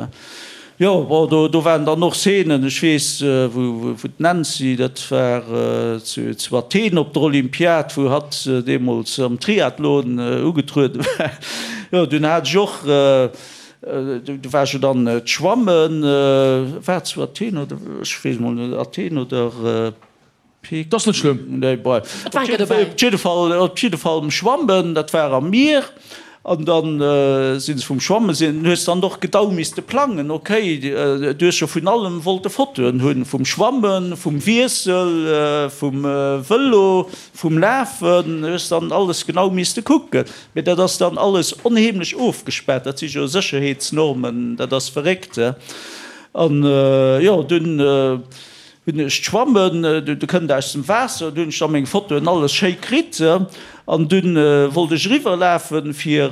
Jo, bon, do, do waren dann och Szenen, ech weess, wou, wou d'Nancy, dat war zu, zu Athen op der Olympiad, wou hatt deemools am Triathlon ugetrueden war. Jo, dunn hat ech och, do war ech jo dann d'Schwammen, war zu Athen oder, ech weess emol net, Athen oder
Peking? Dat ass net schlëmm.
Nee, bref. Op jidde Fall, op jidde Fall um Schwammen, dat war am Mier. An dann si se vum Schwammen sinn, hues dann och gedau misste plangen, okay, du hues jo vun allem wollte Fotoen hunn, vum Schwammen, vum Wiessel, vum Vëlo, vum Lafen, hues dann alles genau misste kucken. Mee dat ass dann alles onheemlech ofgespaart, dat si jo Sécherheetsnormen, dat ass verréckt. An jo, dunn hunn ech d'Schwammen, du kënnt aus dem Waasser, du hunn ech da meng Fotoen alles schéi kritt. An dunn wollt ech eriwwerlafen fir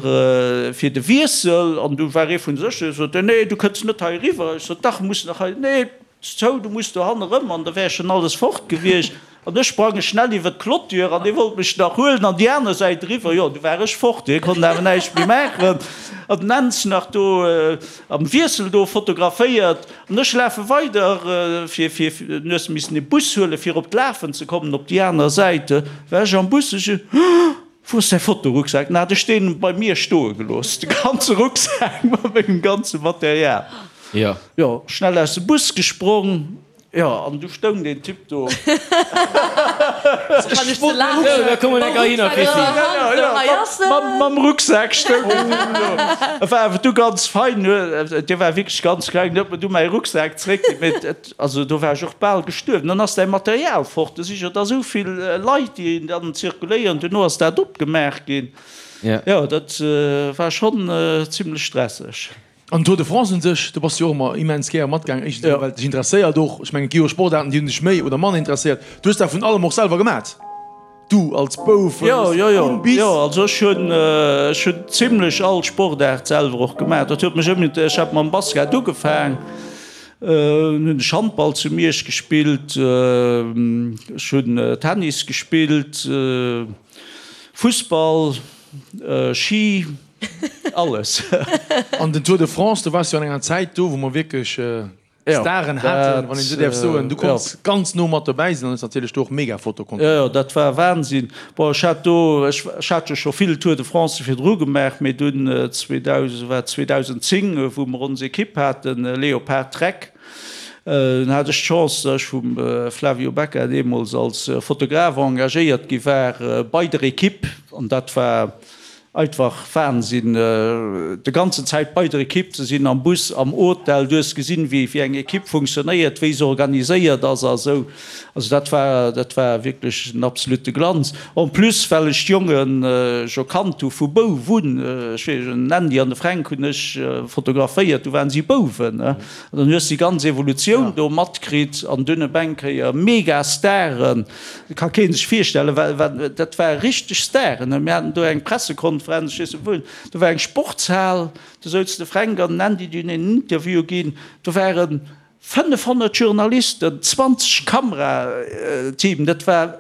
fir de Wiessel an du war ee vun de Sécherheet, sot, nee du kënns net hei eriwwer. Ech sot, dach, muss nach hei, nee. Zou, du muss do hanne rëm, an da wär schon alles fort gewiescht. An ech sprange schnell iwwer d'Clôture, an dee wollt mech nach huelen an déi aner Säit eriwwer. Jo, du war ech fort, hie konnt awer näischt méi maachen. An den Enz nach do am Wiessel do fotograféiert. An ech lafe weider, fir, fir, du hues missen e Bus huelen, fir op d'Lafen ze kommen, op déi aner Säit. War ech am Bus, ech, Wou ass däi Fotorucksak? Na, hat ech deen bei mir stoe gelooss, de ganze Rucksak mat mengem ganze Material.
Jo.
Jo, schnell aus dem Bus gesprong, jo, an du stoung deen Typ do. Mam Rucksak stoung deen Typ do. E war awer du ganz fein, dee war wierklech ganz kleng, huet mer du mäi Rucksak zréckginn, mee et. Also do war ech och bal gestuerwen. Dann ass däi Material fort. Do si jo da sou vill Leit, déi dann zirkuléieren. Duerno ass dat opgemaach ginn. Jo, dat war schonn zimlech stresseg.
An Tour de France un sech, do bass du jo och ëmmer immens gäre matgaangen. Éischtens emol, well et dech interesséiert och. Ech mengen, et gi jo Sportaarten, déi hunn dech méi oder manner interesséiert. Du hues dat vun allem och selwer gemat. Du als Bouf
Jo, jo, jo, vun bis. Jo, also ech hunn, ech hunn zimlech all Sportaart selwer och gemaach. Dat huet mech ëmmer, ech hat mam Basket ugefaang. Hunn ech Handball zu Miersch gespillt, ech hunn Tennis gespillt, Fussball, Ski, alles.
An den Tour de France, do waars du an enger Zäit do, wou mer wierklech Staren haten, wann een esou däerf soen. Du konns ganz no mat dobäi sinn an hues natierlech do och mega Foto konnten.
Jo, jo, dat war Wahnsinn. Bon, ech hat do, ech hat jo scho vill Tour de Francë virdru gemaach, mee dunn 2000, war 2010, wou mer ons Ekipp haten, Leopard Trek. Dunn hat ech d'Chance, datt ech vum Flavio Becca deemools als Fotograf engagéiert gi war bei der Equipe. An dat war einfach Wahnsinn, de ganzen Zäit bei der Equipe ze sinn, am Bus, am Hotel. Du hues gesinn, wéi eng Equipe funktionéiert, wéi se organiséiert ass a sou. Also dat war, dat war wierklech en absolute Glanz. En plus, well ech d'Jonge scho kannt hu vu Bouf un, ech weess, den Andy an de Fränk hunn ech fotograféiert, du waren si Bouwen. An dann hues de déi ganz Evolutioun do matkritt an dunn op eng Kéier mega Staren, ka kee sech virstellen, wa, wa, dat ware richteg Staren. Mir haten do eng Pressekonferenz, ech weess net wou, do war eng Sportshal, do souz de Fränk an den Andy, déi hunn een Interview ginn, do waren 500 Journalisten, 20 Kamerateam, dat war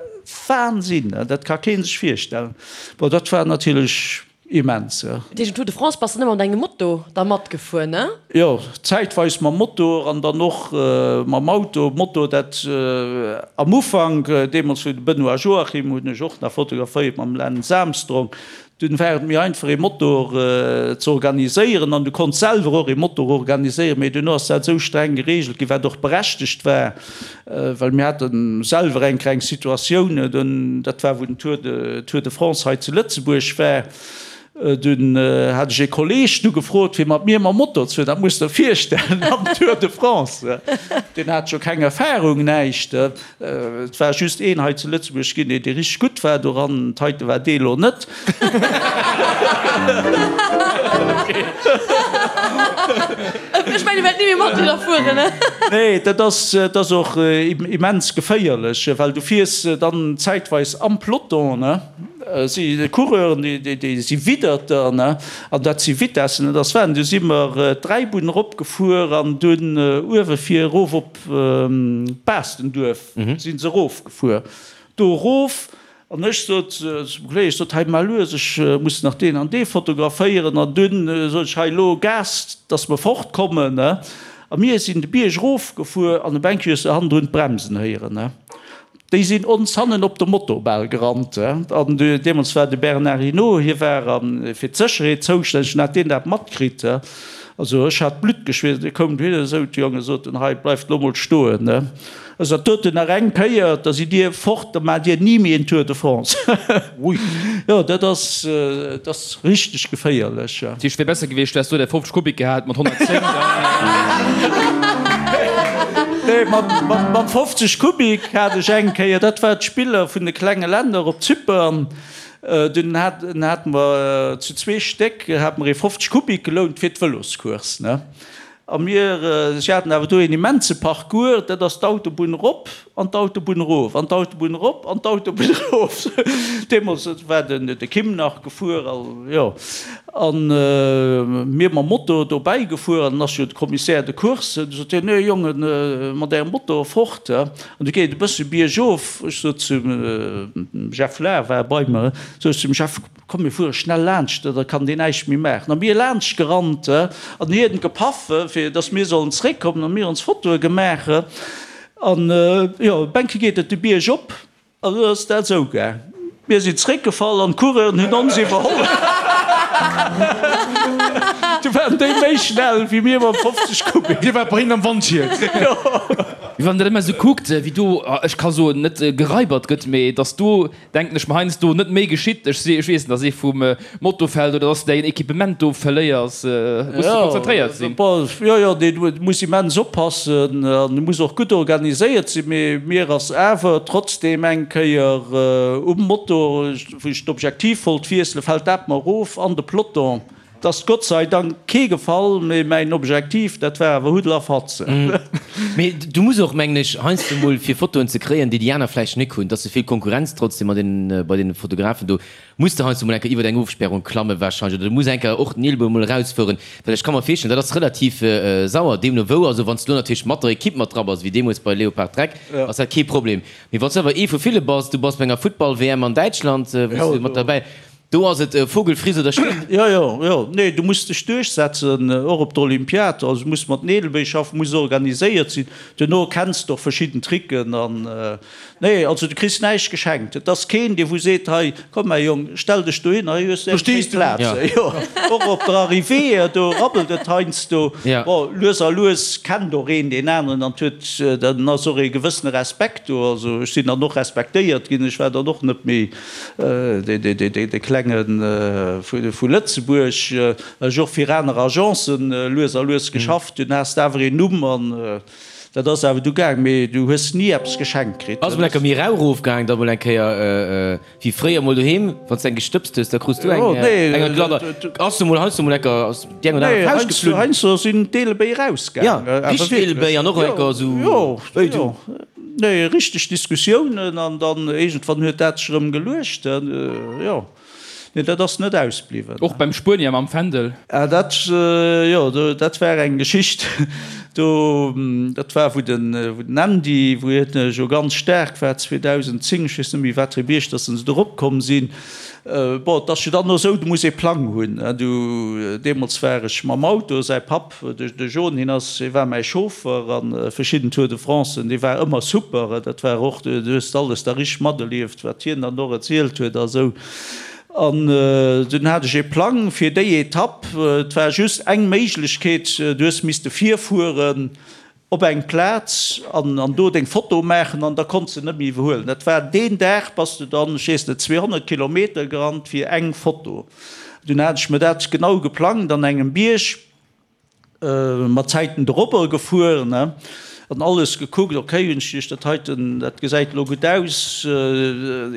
Wahnsinn, dat ka kee sech virstellen. Bon, dat war natierlech immens.
Dat heescht, um Tour de France bass de net mat engem Moto da matgefuer, ne?
Jo, zäitweis mam Motor an dann och mam Auto. Moto, dat am Ufank, deemools wou de Benoît Joachim hunn ech och nach fotograféiert mam Lance Armstrong, Dunn war et méi einfach ee Motor ze organiséieren an du konns selwer och ee Motor organiséieren, mee duerno ass dat esou streng gereegelt ginn, wat och berechtegt war, well mir hate selwer eng kleng Situatioun, dunn, dat war wou den Tour de Tour de France hei zu Lëtzebuerg war, dunn hat ech ee Kolleeg du gefrot fir mat mir mam Motor ze fueren, dat muss der virstellen am Tour de France, deen hat jo keng Erfahrung, näischt. Et war just een hei zu Lëtzebuerg ginn, dee richteg gutt war doran. D'heite war dee lo net.
Ech mengen, wäert ni méi mat dir fueren, ne?
Nee, dat ass, dat ass och immens geféierlech, well du fiers dann zäitweis am Peloton, ne? Si Coureuren, déi, déi si widdert der, ne? An dat si Vitessen, dat ass Wahnsinn. Du si mer d'Dräibunn eropgefuer an dunn uewe fir erof op. Baastenduerf si se erofgefuer, do erof, an ech sot zum Kolleg, ech sot, hei mar lues, ech muss nach deen an dee fotograféieren, an dunn sot ech, hei elo Gas, dass mer fortkommen, a mir sinn de Bierg erofgefuer an op eng Kéier hues de hannendrun d'Bremsen héieren. Déi sinn ons hannen op de Moto bal gerannt. An deemools war de Bernard Hinault, hie war fir d'Sécherheet zoustänneg, an hat deen dat matkritt. Also ech hat d'Blutt geschweesst. Dee koum dohinner, esou, d'Jonge soten, hei bleift elo mol stoen. Ech sot, doten nach eng Kéier, da sidd Dir fort, da maacht Dir ni méi en Tour de France. Jo, dat ass, dat ass richteg geféierlech.
Dat heescht, et wier besser gewiescht, du häss do däi 50 Kubik gehat mat 110, dann.
Nee, mat 50 Kubik hat ech eng Kéier, dat war d'Spiller vun de klenge Länner op Zypern, dunn hate mer zu zwee Stéck hate mer ee 50 Kubik gelount fir d'Vëloscourse, ne. A mir, si haten awer do een immense Parcours, dat ass d'Autobunn erop an d'Autobunn erof, an d'Autobunn erop an d'Autobunn erof. Deemools war den de Kim nach gefuer, a jo, a mir mam Moto dobäi gefuer. An dann ass jo de Commissaire de course, du sot hien, Nee Jongen, mat ärem Moto fort. An du geet et e bësse biergof. Ech sot zum Jeff Lahr, war bei mer, sot ech zum Jeff, Komm mir fuere schnell laanscht, da kann deen näischt méi maachen. A mir laanscht gerannt an hien gepaff, fir dass mir sollen zeréckkommen a mir ons Fotoe gemaach. An jo, Bänke geet et de Bierg op an du ass dat esou gaang. Mir sinn zeréckgefall an d'Coureuren hunn ons iwwerholl. Du waren déi méi schnell wéi mir mam 50 Kubik.
Dir waart bei hinnen am Wandschied.
Jo.
Mee wann een dat ëmmer esou kuckt, wéi do, ech ka soen, net gereibert gëtt, mee dass do Denken ech mer heiansdo, net méi geschitt. Ech si, ech weess net, dass ee vum Moto fält oder dass de däin Equipement do verléiers. Muss de konzentréiert sinn.
Jo, jo, dee muss immens oppassen an e muss och gutt organiséiert sinn. Mee mir ass awer trotzdeem eng Kéier um Moto, wou ech d'Objektiv wollt wiesselen, fält dat mer erof an de Peloton. 't ass gottseidank kee gefall, mee mäin Objektiv, dat war awer Huddel a Fatze.
Mee du muss och, mengen ech, heiansdo mol fir Fotoen ze kréien, déi déi aner vläicht nik hunn, 't ass souvill Konkurrenz trotzdem mat den, bei den Fotografen do, muss de heiansdo mol eng Kéier iwwert eng Ofsperrung klamme wahrscheinlech oder du muss eng Kéier och den Eelebou mol erausfueren, well ech ka mer virstellen, dat ass relativ sauer, deemno wou. Also wann s du lo natierlech mat der Equipe mat dra bass, wéi deemools bei Leopard Trek, ass dat kee Problem. Mee wann s du awer ee vu ville bass, du bass bei enger Futtball-WM an Däitschland, wou s du mat derbäi. Do ass et Vogelfriss oder stirb.
Jo, jo, jo. Nee, du muss dech duerchsetzen, och op der Olympiad. Also du muss mat Neelebéi schaffen, muss organiséiert sinn. Duerno kenns de och verschidden Tricken an, nee, also du kriss näischt geschenkt. Et ass keen, dee wou seet, hei, komm mäi Jong, stell dech dohin, hei hues de eng schéi Plaz. Jo, och op der Arrivée, do rabbelt et heiansdo. Bon, lues a lues kennt och een deen aneren an huet, dann ass och ee gewëssene Respekt do. Also ech sinn dann och respektéiert ginn, ech war dann och net méi De Klenge vu Lëtzebuerg, well ech och fir aner Agencen lues a lues geschafft hunn, has de awer een Numm an dat ass awer du gaang, mee du hues ni eppes geschenkt kritt.
Ass mol enker méi rau rof gaang, da mol eng Kéier wéi fréier mol doheem, wann s de eng gestëbst hues, da krus du eng eng Gladder. Ass du mol heiansdo mol enker ass déi eng oder aner Fauscht geflunn?
Nee, heiansdo sinn d'Eelebéi erausgaang.
Jo, richteg Eelebéi an och enker esou, wéi du.
Nee, richteg Diskussiounen an dann iergendwann huet dat sech erëm geluecht. Jo, nee, dat ass net ausbliwwen.
Och beim Spuenier mam Fändel.
Ah, dat, jo, dat war eng Geschicht do. Dat war, wou den, wou den Andy, wou hien jo ganz staark war 2010, ech weess net méi wat fir e Bierg dass se do eropkomm sinn. Bon, et ass jo dann och esou, du muss ee Plang hunn. Du, deemools war ech mam Auto, säi Papp, de John, hien ass, hie war mäi Chauffer a verschidden Tour de Francen, dee war ëmmer super. Dat war och, du hues alles da richteg materlieft, wat hien dann och erzielt huet a sou. An dunn hat ech ee Plang fir déi Etapp. Et war just eng Méiglechkeet, du hues misste virfueren, Op eng Plaz an an do deng Foto maachen an da konns de net méi iwwerhuelen. Dat war deen Dag bass de dann, ech weess net, 200 Kilometer gerannt fir eng Foto. Dunn hat ech mir dat genau geplangt an engem Bierg, mat Zäiten dorobber gefuer, ne, an alles gekuckt, ok, hunn ech geduecht, dat heiten, dat gesäit elo gutt aus,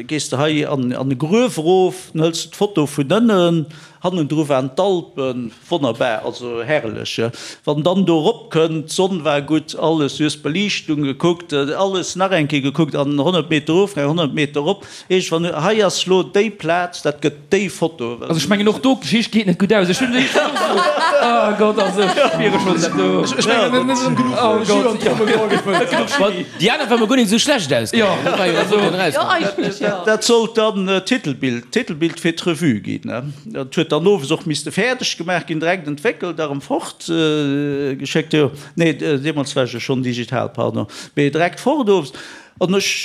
gees de hei an an e Gruef erof, dann hëls de d'Foto vun ënnen, hannendru waren d'Alpen. Wonnerbar, also herrlech. Wann dann do erop kënnt, d'Sonn war gutt, alles, du hues d'Beliichtung gekuckt, alles nach eng Kéier gekuckt an 100 Meter erof, nach 100 Meter erop, iergendwann, hei ass lo déi Plaz, dat gëtt déi Foto.
Also ech mengen och do, d'Geschicht geet net gutt aus. Ech hunn déi scho esou, oh Gott, also ech spiere schonn dat do.
Ech mengen, net erëm genuch
Oh Gott,
Jus an d'Trommel gefëllt.
Net genuch Chimie.
Déi aner war mer guer net esou schlecht ausgaangen.
Jo, also.
Jo, eigentlech jo.
Dat sollt dann d'Titelbild, d'Titelbild fir d'Revue ginn. Dat huet dann owes och misste fäerdeg gemaach ginn, direkt entwéckelt a rëm fort geschéckt. Jo, nee, deemools war ech jo schonn digital, pardon, mee direkt fort owes. An ech,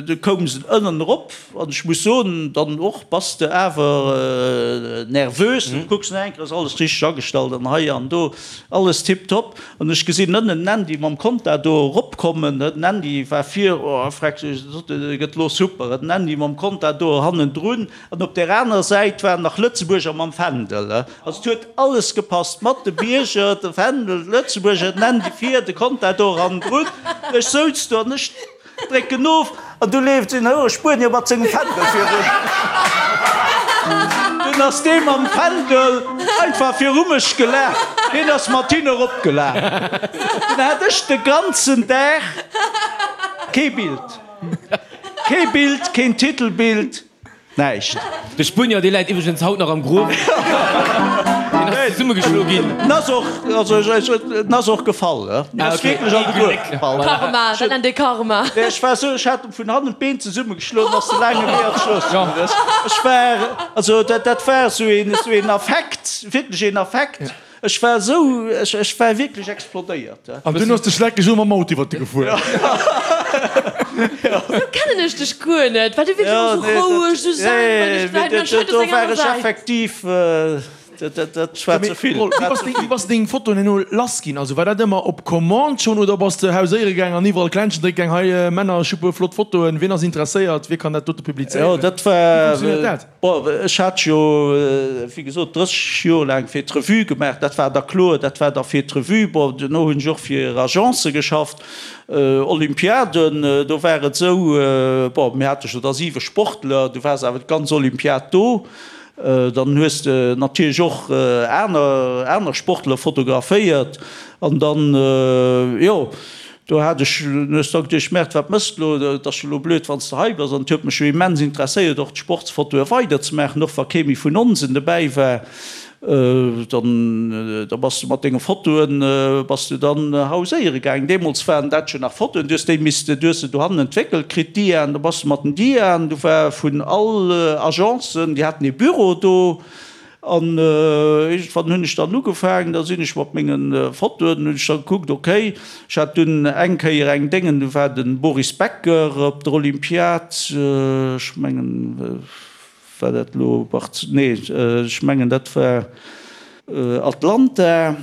du koum se ënnen erop an ech muss soen, dann och bass de awer nervös, du kucks nach eng Kéier, ass alles richteg agestallt an hei an do, alles tiptop. An ech gesinn ënnen den Andy mam Contador eropkommen, den Andy war vir, oh, freck, dat gëtt elo super, den Andy mam Contador hannendrun. An op där aner Säit waren nach Lëtzebuerger mam Fändel. Also et huet alles gepasst, mat de Bierger, de Fändel, d'Lëtzebuerger, den Andy vir, de Contador hannendrun. Ech souz do an ech drécken of an du leeft en houre Spuenier mat sengem Fändel virun. Dunn ass dee mam Fändel einfach viru mech gelaf. Hien ass mat hinne eropgelaf. Dunn hat ech de ganzen Dag kee Bild. Kee Bild, keen Titelbild. Näischt.
De Spuenier, dee läit iwwregens haut nach am Gruef. Deen ass zesummegeschlo ginn.
En ass och, also en ass och gefall, he. En ass wierklech an de Gruef gefall.
Karma, dat nennt ee Karma.
Nee, ech war esou, ech hat em vun hannen d'Been zesummegeschloen, ass de laange Wee an d'Strooss gaangen. Ech war, also dat, dat war esou een, esou een Affekt, wierklech een Affekt. Ech war esou, ech, ech war wierklech explodéiert.
An dunn ass de Schleck esou mam Auto iwwert de gefuer.
Esou kennen ech dech guer net, well du wierks ëmmer esou roueg, esou zen, wann ech däin, anscheinend ass
eng aner Säit. Effektiv, dat, dat war ze vill.
Wéi bass de, wéi bass de deng Fotoen herno lass ginn? Also war dat ëmmer op Commande schonn oder bass de hauséiere gaang an iwwerall Klenschen drécke gaang, hei Männer, ech hu puer flott Fotoen, wien ass interesséiert, wie kann dat dote publizéieren?
Jo, dat war.
Wéi funktionéiert dat?
Bon, ech hat jo, wéi gesot, 30 Joer laang fir d'Revue gemaach. Dat war da kloer, dat war da fir d'Revue. Bon, duerno hunn ech och fir Agencë geschafft. Olympiaden, do war et esou, bon, mir hate jo da siwe Sportler, du waars awer d'ganz Olympiad do. Dann hues de natierlech och aner, aner Sportler fotograféiert. An dann, jo. Do hat ech hues da geduecht, Merde, wat mëss de lo, et ass jo lo blöd, wann s de hei bass. An et huet mech jo immens interesséiert, och d'Sportsfotoe weiderzemaachen, och wa kee méi vun onsen dobäi war. Dann, da bass de mat denge Fotoen bass de dann hauséiere gaangen. Deemools waren dat jo nach Fotoen, du hues déi misste, du hues se dohannen entwéckelt kritt, d'Diaen, da bass de mat den Diaen, du war vun all Agencen, déi haten ee Büro do. An iergendwann hunn ech dann ugefaangen, da sinn ech mat menge Fotoen, hunn ech da gekuckt, okay, ech hat dunn eng Kéier eng Déngen, du war de Boris Becker op der Olympiad, ech mengen, War dat elo Barz-, nee, ech mengen dat war Atlanta.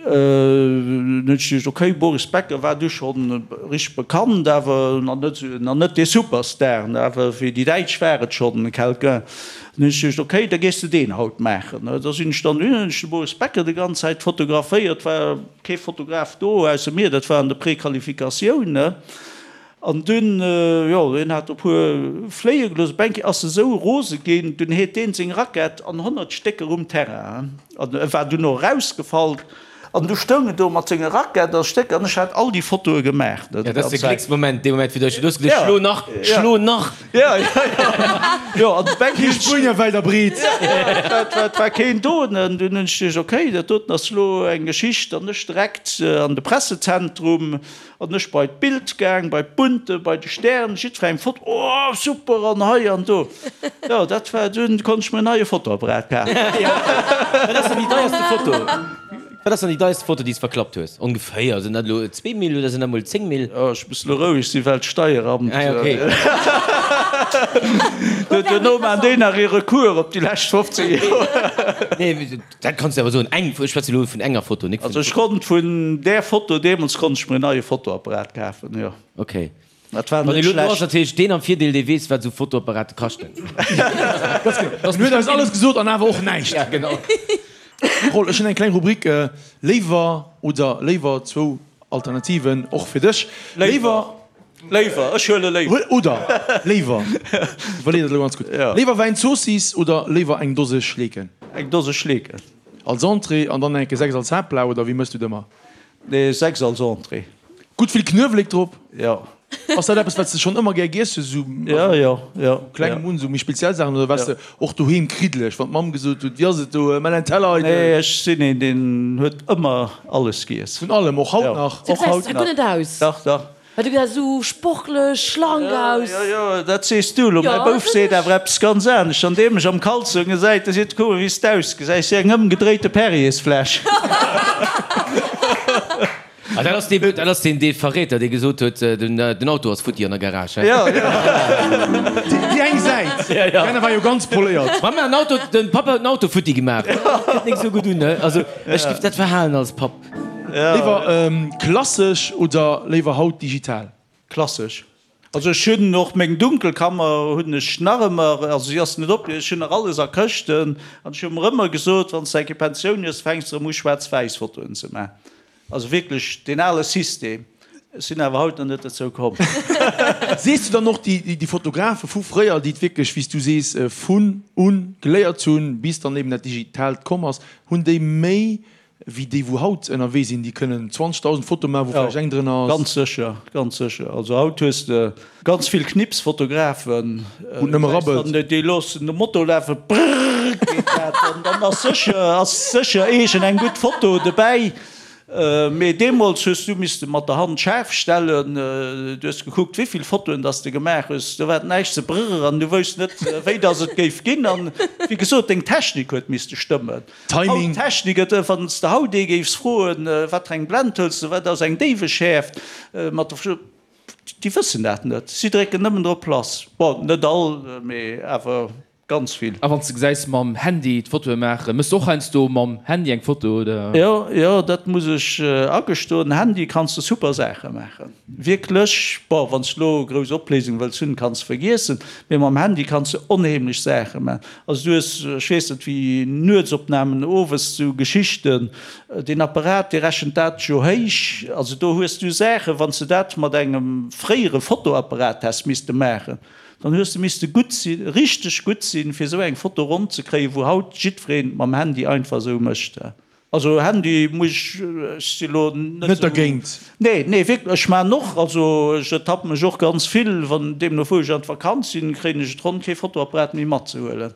Dunn hunn ech geduecht, okay, Boris Becker war du schonn richteg bekannt, awer nach net esou, nach net dee Superstar, awer fir déi Däitsch war et schonn quelqu'un. Dunn hunn ech geduecht, okay, da gees de deen haut maachen. Da sinn ech dann hunn ech de Boris Becker déi ganz Zäit fotograféiert, war kee Fotograf do ausser mir, dat war an der Prequalifikatioun. An dunn, jo, hien hat e puer fléie gelooss. Op eng Kéier ass e sou rose ginn, dunn heet deen seng Rackett an 100 Stécker um Terrain. An e war dunn och erausgefall. An du stoung en do mat senger Rackett a Stécker an ech hat all déi Fotoe gemaach.
Jo, dat ass de Glécksmoment, dee Moment, wou du dech, du hues geduecht, schlo nach, schlo nach!
Jo, jo, jo. Jo, an op eng
Kéier. Kee Spuenier wäit a breet.
Jo, et war keen do. An dunn hunn ech geduecht, okay, dat doten ass elo eng Geschicht. An ech direkt an de Pressezentrum. An ech bei d'Bild gaang, bei d'Bunte, bei de Stern, jiddferengem Foto, oh super an hei an do. Jo, dat war, dunn konnt ech mir en neie Fotoapparat kafen.
Wat ass dann déi deierste Foto? Wat ass dann déi deierste Foto, déi s de verklappt hues? Ongeféier, sinn dat elo 2000 oder sinn dat mol 10000?
Oh, ech muss elo roueg sinn, well d'Steieramt.
Ah, okay.
Duerno maan déi nach ee Recours op déi lescht 15 Joer.
Nee, Dat kanns de awer soen, eng, ech schwätze elo vun enger Foto, nik vun.
Also ech konnt vun där Foto deemools konnt ech mir en neie Fotoapparat kafen, jo.
Ok.
Dat war
Wann
net
elo do ass
schlecht.
natierlech deen am Virdeel, dee weess, wat esou Fotoapparate kaschten.
Ganz genau. En huet eis alles gesot an awer och näischt.
Ja, genau.
Roll, ech hunn eng kleng Rubrik, Léiwer oder léiwer, zwou Alternativen och fir dech. Léiwer.
Léiwer, ech huele léiwer.
Oder léiwer, iwwerlee dat elo ganz gutt, léiwer Wäin Zoossiss oder léiwer eng Dose Schleeken?
Eng Dose Schleeken.
Als Entrée an dann enke 6 als Haaptplat oder wéi mëss du et ëmmer?
Nee, 6 als Entrée.
Gutt vill Knuewelek drop?
Jo.
Ass dat eppes wat s de schonn ëmmer gär giess hues, esou
Jo, jo, jo.
vu klengem un, esou méi speziell Saachen oder waars de och doheem kriddeleg, wann d'Mamm gesot huet, wéi ass et do, mell en Teller eidel?
Nee, ech sinn een, deen huet ëmmer alles giess.
Vun allem, och haut nach?
Du
Och haut
gesäis guer
nach.
net aus.
Dach, dach.
Well du gesäis esou sportlech, schlank aus.
Jo, jo, dat sees du elo. Mäi Bouf seet awer eppes ganz anescht. Wann dee mech am Kalzong gesäit, da seet e, Kuck mol, wéi s d'ausgesäis, wéi eng ëmgedréite Perriersfläsch.
Ah, dat ass dee, dat ass deen, dee Verräter, dee gesot huet, den, den Auto ass futti an der Garage, hä?
Jo, jo.
Déi eng Säit,
Ja, ja.
déi aner war jo ganz poléiert.
Mamma, den Auto, den Papa huet den Auto futti gemaach. Kënnt nik esou gutt un, ne? Also, ech giff dat verhalen als Papp.
Léiwer klassesch oder léiwer haut digital?
Klassesch. Also ech hunn och meng Dunkelkammer hunn ech nach ëmmer, also si ass net op, ech hunn nach alles a Këschten an ech hu mer ëmmer gesot, wann s de eng Kéier Pensioun hues, fänks de erëm u schwaarz-wäiss Fotoen ze maachen. Also wierklech deen ale System. Ech sinn awer haut nach net dozou komm.
Sees du dann och déi Fotografe vu fréier, déi et wierklech, wéi s du sees, vun un geléiert hunn, bis dann eben dat Digitaalt komm ass, hunn déi méi Wéi déi wou haut ënnerwee sinn, déi kënnen 20.000 Fotoe maachen, wou vläicht eng drënner ass.
Ganz sécher, ganz sécher. Also haut hues de ganz vill Knipsfotografen,
Wou et nëmme rabbelt.
Déi loossen de Motor lafen, brrrr geet dat, an dann ass sécher, ass sécher iergend eng gutt Foto dobäi. Mee deemools hues du misste mat der Hand schaarf stellen, du hues gekuckt wéivill Fotoen dass de gemaach hues, do war et näischt ze brrr an du wousst net wéi dass et géif ginn. An wéi gesot, deng Technik huet misste stëmmen.
Timing.
Haut Technik, et wann s de haut ee géifs froen, wat fir eng Blend hëls de, wat ass eng Déiweschäerft, mat der, déi wëssen dat net. Si drécken nëmmen drop lass. Bon, net all, mee awer ganz vill.
A wann s de gesäis mam Handy d'Fotoe maachen, méchs de och heiansdo mam Handy eng Foto, oder?
Jo, jo, dat muss ech agestoen. Handy kanns de super Saache maachen. Wierklech, bon, wann s de lo grouss Opléisung wëlls hunn, kanns de vergiessen, mee mam Handy kanns de onheemlech Saache maachen. Also du hues, ech weess net wéi, Nuetsopnamen, owes sou Geschichten, deen Apparat dee rechent dat jo héich, also do hues du Saachen, wann s de dat mat engem fréiere Fotoapparat häss misste maachen, dann hues de misste gutt sinn, richteg gutt sinn, fir esou eng Foto ronn ze kréien, wou haut jiddwereen mam Handy einfach esou mécht. Also Handy muss ech, ech si lo net
Net dergéint?
Nee, nee wierklech, ech maan och, also ech ertappen mech och ganz vill, wann deemno wou ech an d'Vakanz sinn, kréien ech et ronn kee Fotoapparat méi matzehuelen,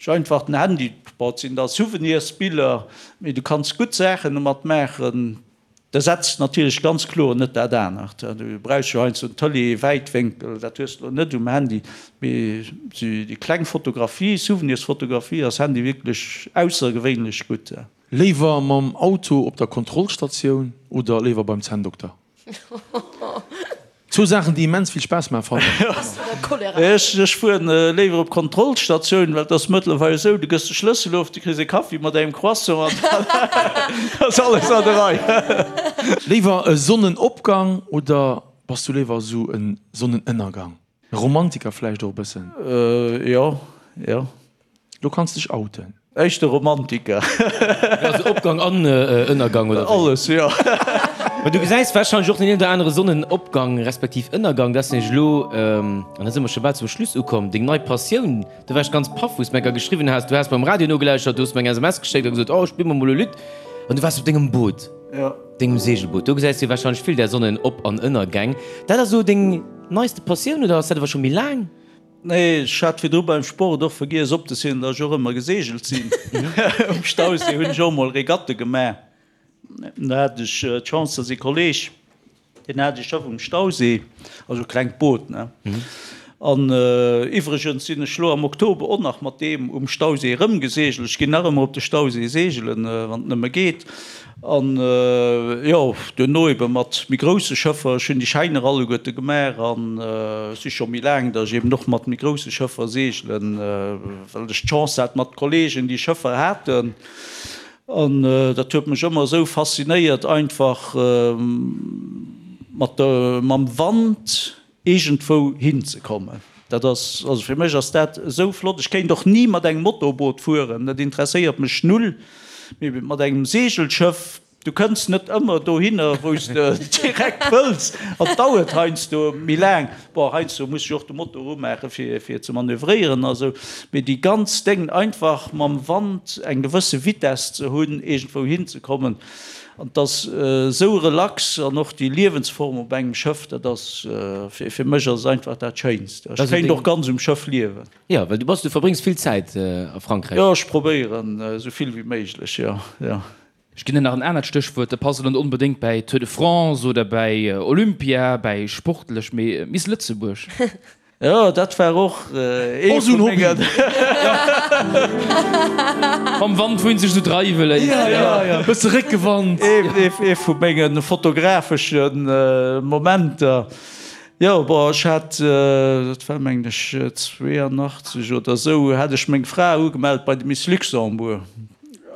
ech einfach den Handy. Bon, et sinn da Souvenirsbiller, mee du kanns gutt Saachen domat maachen. D'ersetzt natierlech ganz kloer net dat anert. Du brauchs jo heiansdo en Tëlee-Wäitwénkel, dat hues de elo net um Handy. Mee déi kleng Fotografie, Souvenirsfotografie, ass Handy wierklech aussergewéinlech gutt.
Léiwer mam Auto op der Kontrollstatioun oder léiwer beim Zänndokter? Zwou Saachen déi immens vill Spaass maachen fannen
ech. Ech fueren léiwer op Kontrollstatioun, well et ass mëttlerweil esou, du gëss de Schlëssel of, du kriss e Kaffi mat engem Croissant an dann ass alles an der Rei.
Léiwer e Sonnenopgang oder bass du léiwer esou e Sonnenënnergang? E Romantiker vläicht och e bëssen?
Jo, jo.
Lo kanns dech outen.
Éischter Romantiker.
Also Opgang an Ënnergang, oder wéi?
Alles, jo.
Mä du gesäis warscheinlech och den een oder anere Sonnenopgang respektiv Ënnergang. Dat ass nämlech elo, an da si mer scho bal zum Schluss ukomm, deng nei Passioun. Do war ech ganz paff, wou s de mer geschriwwen has, du has beim Radio nogelauschtert, du hues mer eng SMS geschéckt a gesot, oh, spill mer mol e Lidd. An du waars op dengem Boot, dengem Segelboot. Do gesäis du warscheinlech vill där Sonnenop an Ënnergäng. Dat ass elo deng neiste Passioun oder ass dat awer scho méi laang?
Nee, ech hat virdru beim Sport och vergiess opzezielen, datt ech och ëmmer geseegelt sinn. Um Stauséi hunn ech och emol Regatte gemaach. Do hat ech d'Chance, datt ee Kolleeg, deen hat ee Schëff um Stauséi, also e klengt Boot, ne. An iwwregens sinn ech lo am Oktober och nach mat deem um Stauséi erëmgeseegelt. Ech ginn nach ëmmer op de Stauséi seegelen, wann et nëmme geet. An jo, duerno ebe mat méi grousse Schëffer. Ech hunn déi Schäiner alleguerte gemaach an et si scho méi laang, datt ech eben och mat méi grousse Schëffer seegelen, well ech d'Chance hat mat Kolleegen, déi Schëffer haten. An dat huet mech ëmmer esou faszinéiert, einfach mat der, mam Wand iergendwou hinzekommen. Dat ass, also fir mech ass dat esou flott. Ech kéint och ni mat engem Motorboot fueren, dat interesséiert mech null. Mee mat engem Seegelschëff, du kënns net ëmmer dohinner, wou s de direkt wëlls an et dauert heiansdo méi laang. Bon, heiansdo muss ech och de Motor umaache fir, fir ze manövréieren a sou. Mee déi ganz Déng, einfach mam Wand eng gewësse Vitess ze hunn, iergendwou hinzekommen, An et ass esou relax an och déi Liewensform op engem Schëff, dat ass, fir mech ass et einfach dat Schéinst. Ech kéint och ganz um Schëff liewen.
Jo, well du bass, du verbréngs vill Zäit a Frankräich.
Jo, ech probéieren esou vill wéi méiglech, jo, jo.
Ech ginn der nach en anert Stéchwuert, dat passt elo net onbedéngt bäi Tour de France oder bäi Olympia, bäi sportlech, mee Miss Lëtzebuerg.
Jo, dat war och ee vu mengen.
Mam Wand wou een sech esou dreiwe léisst.
Jo, jo, jo, bësse Réckewand.
Ee vu menge fotografesche Momenter. Jo, bon, ech hat, dat war mengen ech 82 oder esou, hat ech meng Fra ugemellt bei de Miss Luxembourg.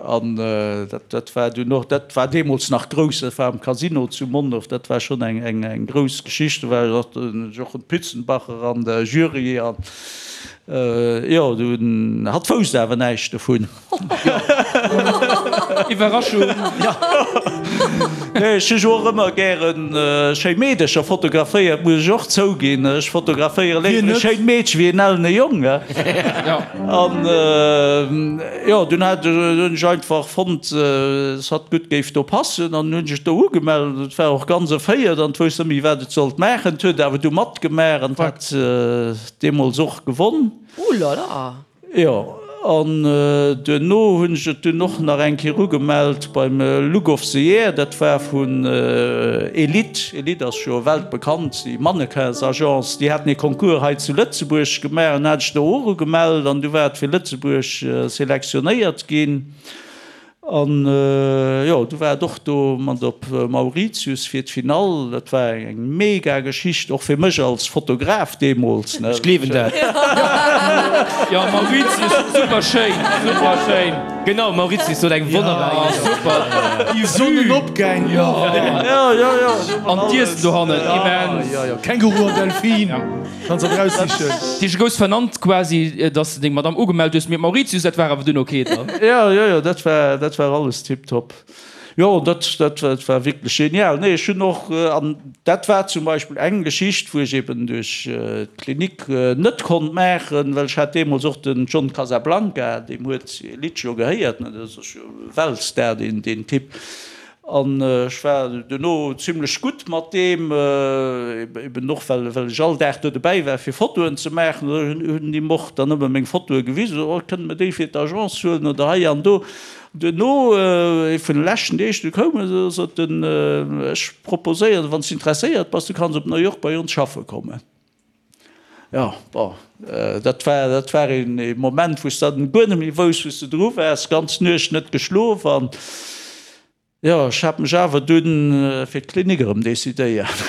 An dat war dunn och, dat war deemools nach grouss, dat war am Casino zu Mondorf, dat war schonn eng grouss Geschicht. Do war och de Jochen Pützenbacher an der Jury an jo, dunn, hatt wousst awer näischt dovun.
Iwwerraschung!
Nee, ech hu jo och ëmmer gäre schéi Meedercher fotograféiert, muss ech och zouginn. Ech fotograféiere léiwer e schéint Meedche wéi en ellene Jong. An jo, dunn hat, hunn ech einfach fonnt, dass hatt gutt géif do passen an hunn ech do ugemellt. Et war och ganz erféiert an wousst net méi, wat et sollt maachen. Et huet awer du matgemaach an hat deemools och gewonn.
Ouh là là!
Jo, an duerno hunn ech et dunn och nach eng Kéier ugemellt beim Look of the Year. Dat war vun Elite. Elite ass jo weltbekannt, déi Mannequins-Agence. Déi haten ee Concours hei zu Lëtzebuerg gemaach an hat ech do och ugemellt an du war et fir Lëtzebuerg selektionéiert ginn. An jo, du war et och do mat op Mauritius fir d'Finall. Dat war eng mega Geschicht, och fir mech als Fotograf deemools, ne.
Ech gleewen dat.
Jo, Mauritius, super schéin, super schéin.
Genau, Mauritius sot eng wonnerbar
Insel. Super,
déi Sonnenopgäng,
jo. Jo, jo, jo. An d'Iessen dohannen, immens.
Jo, jo, Känguru an Delfin. Kanns der raussichen.
Dich gous vernannt quasi dass de deng Madame ugemellt hues, mee Mauritius dat war awer dunn ok dann?
Jo jo jo dat war dat war alles tiptop. Jo dat dat dat war wierklech genial. Nee ech hunn och an dat war zum Beispill eng Geschicht wou ech eben duerch d'Klinik net konnt maachen, well ech hat deemools och den John Casablanca, deem huet Elite jo gehéiert, ne, dat ass jo e Weltstar deen deen Typ. An ech war duerno zimlech gutt mat deem, eben och well ech all Dag do dobäi war fir Fotoen ze maachen. Hunn him och dann ëmmer meng Fotoe gewisen, oh kënne mer déi fir d'Agence huelen oder hei an do. Duerno, ee vun de leschten Deeg, du koum e, sot en, ech proposéieren, wann s de interesséiert bass, du kanns op New York bei ons schaffe kommen. Jo, bon, dat war, dat war een Moment, wou s de dann guer net méi wousst, wou s de dru waars, ganz Nuecht net geschlof an jo, ech hat mech awer dunn fir d'Klinik erëm decidéiert.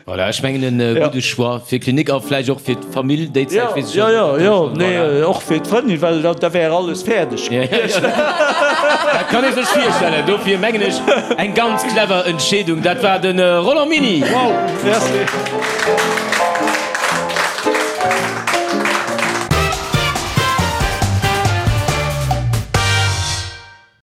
Voilà, ech mengen e gudde Choix fir d'Klinik a vläicht och fir d'Famill déi Zäit, weess
ech net. Jo, jo, jo, nee, och fir d'Frëndin, well da wär alles fäerdeg gewiescht.
Dat kann ee sech virstellen, dofir mengen ech eng ganz clever Entscheedung. Dat war de Roland Miny.
Wow, merci.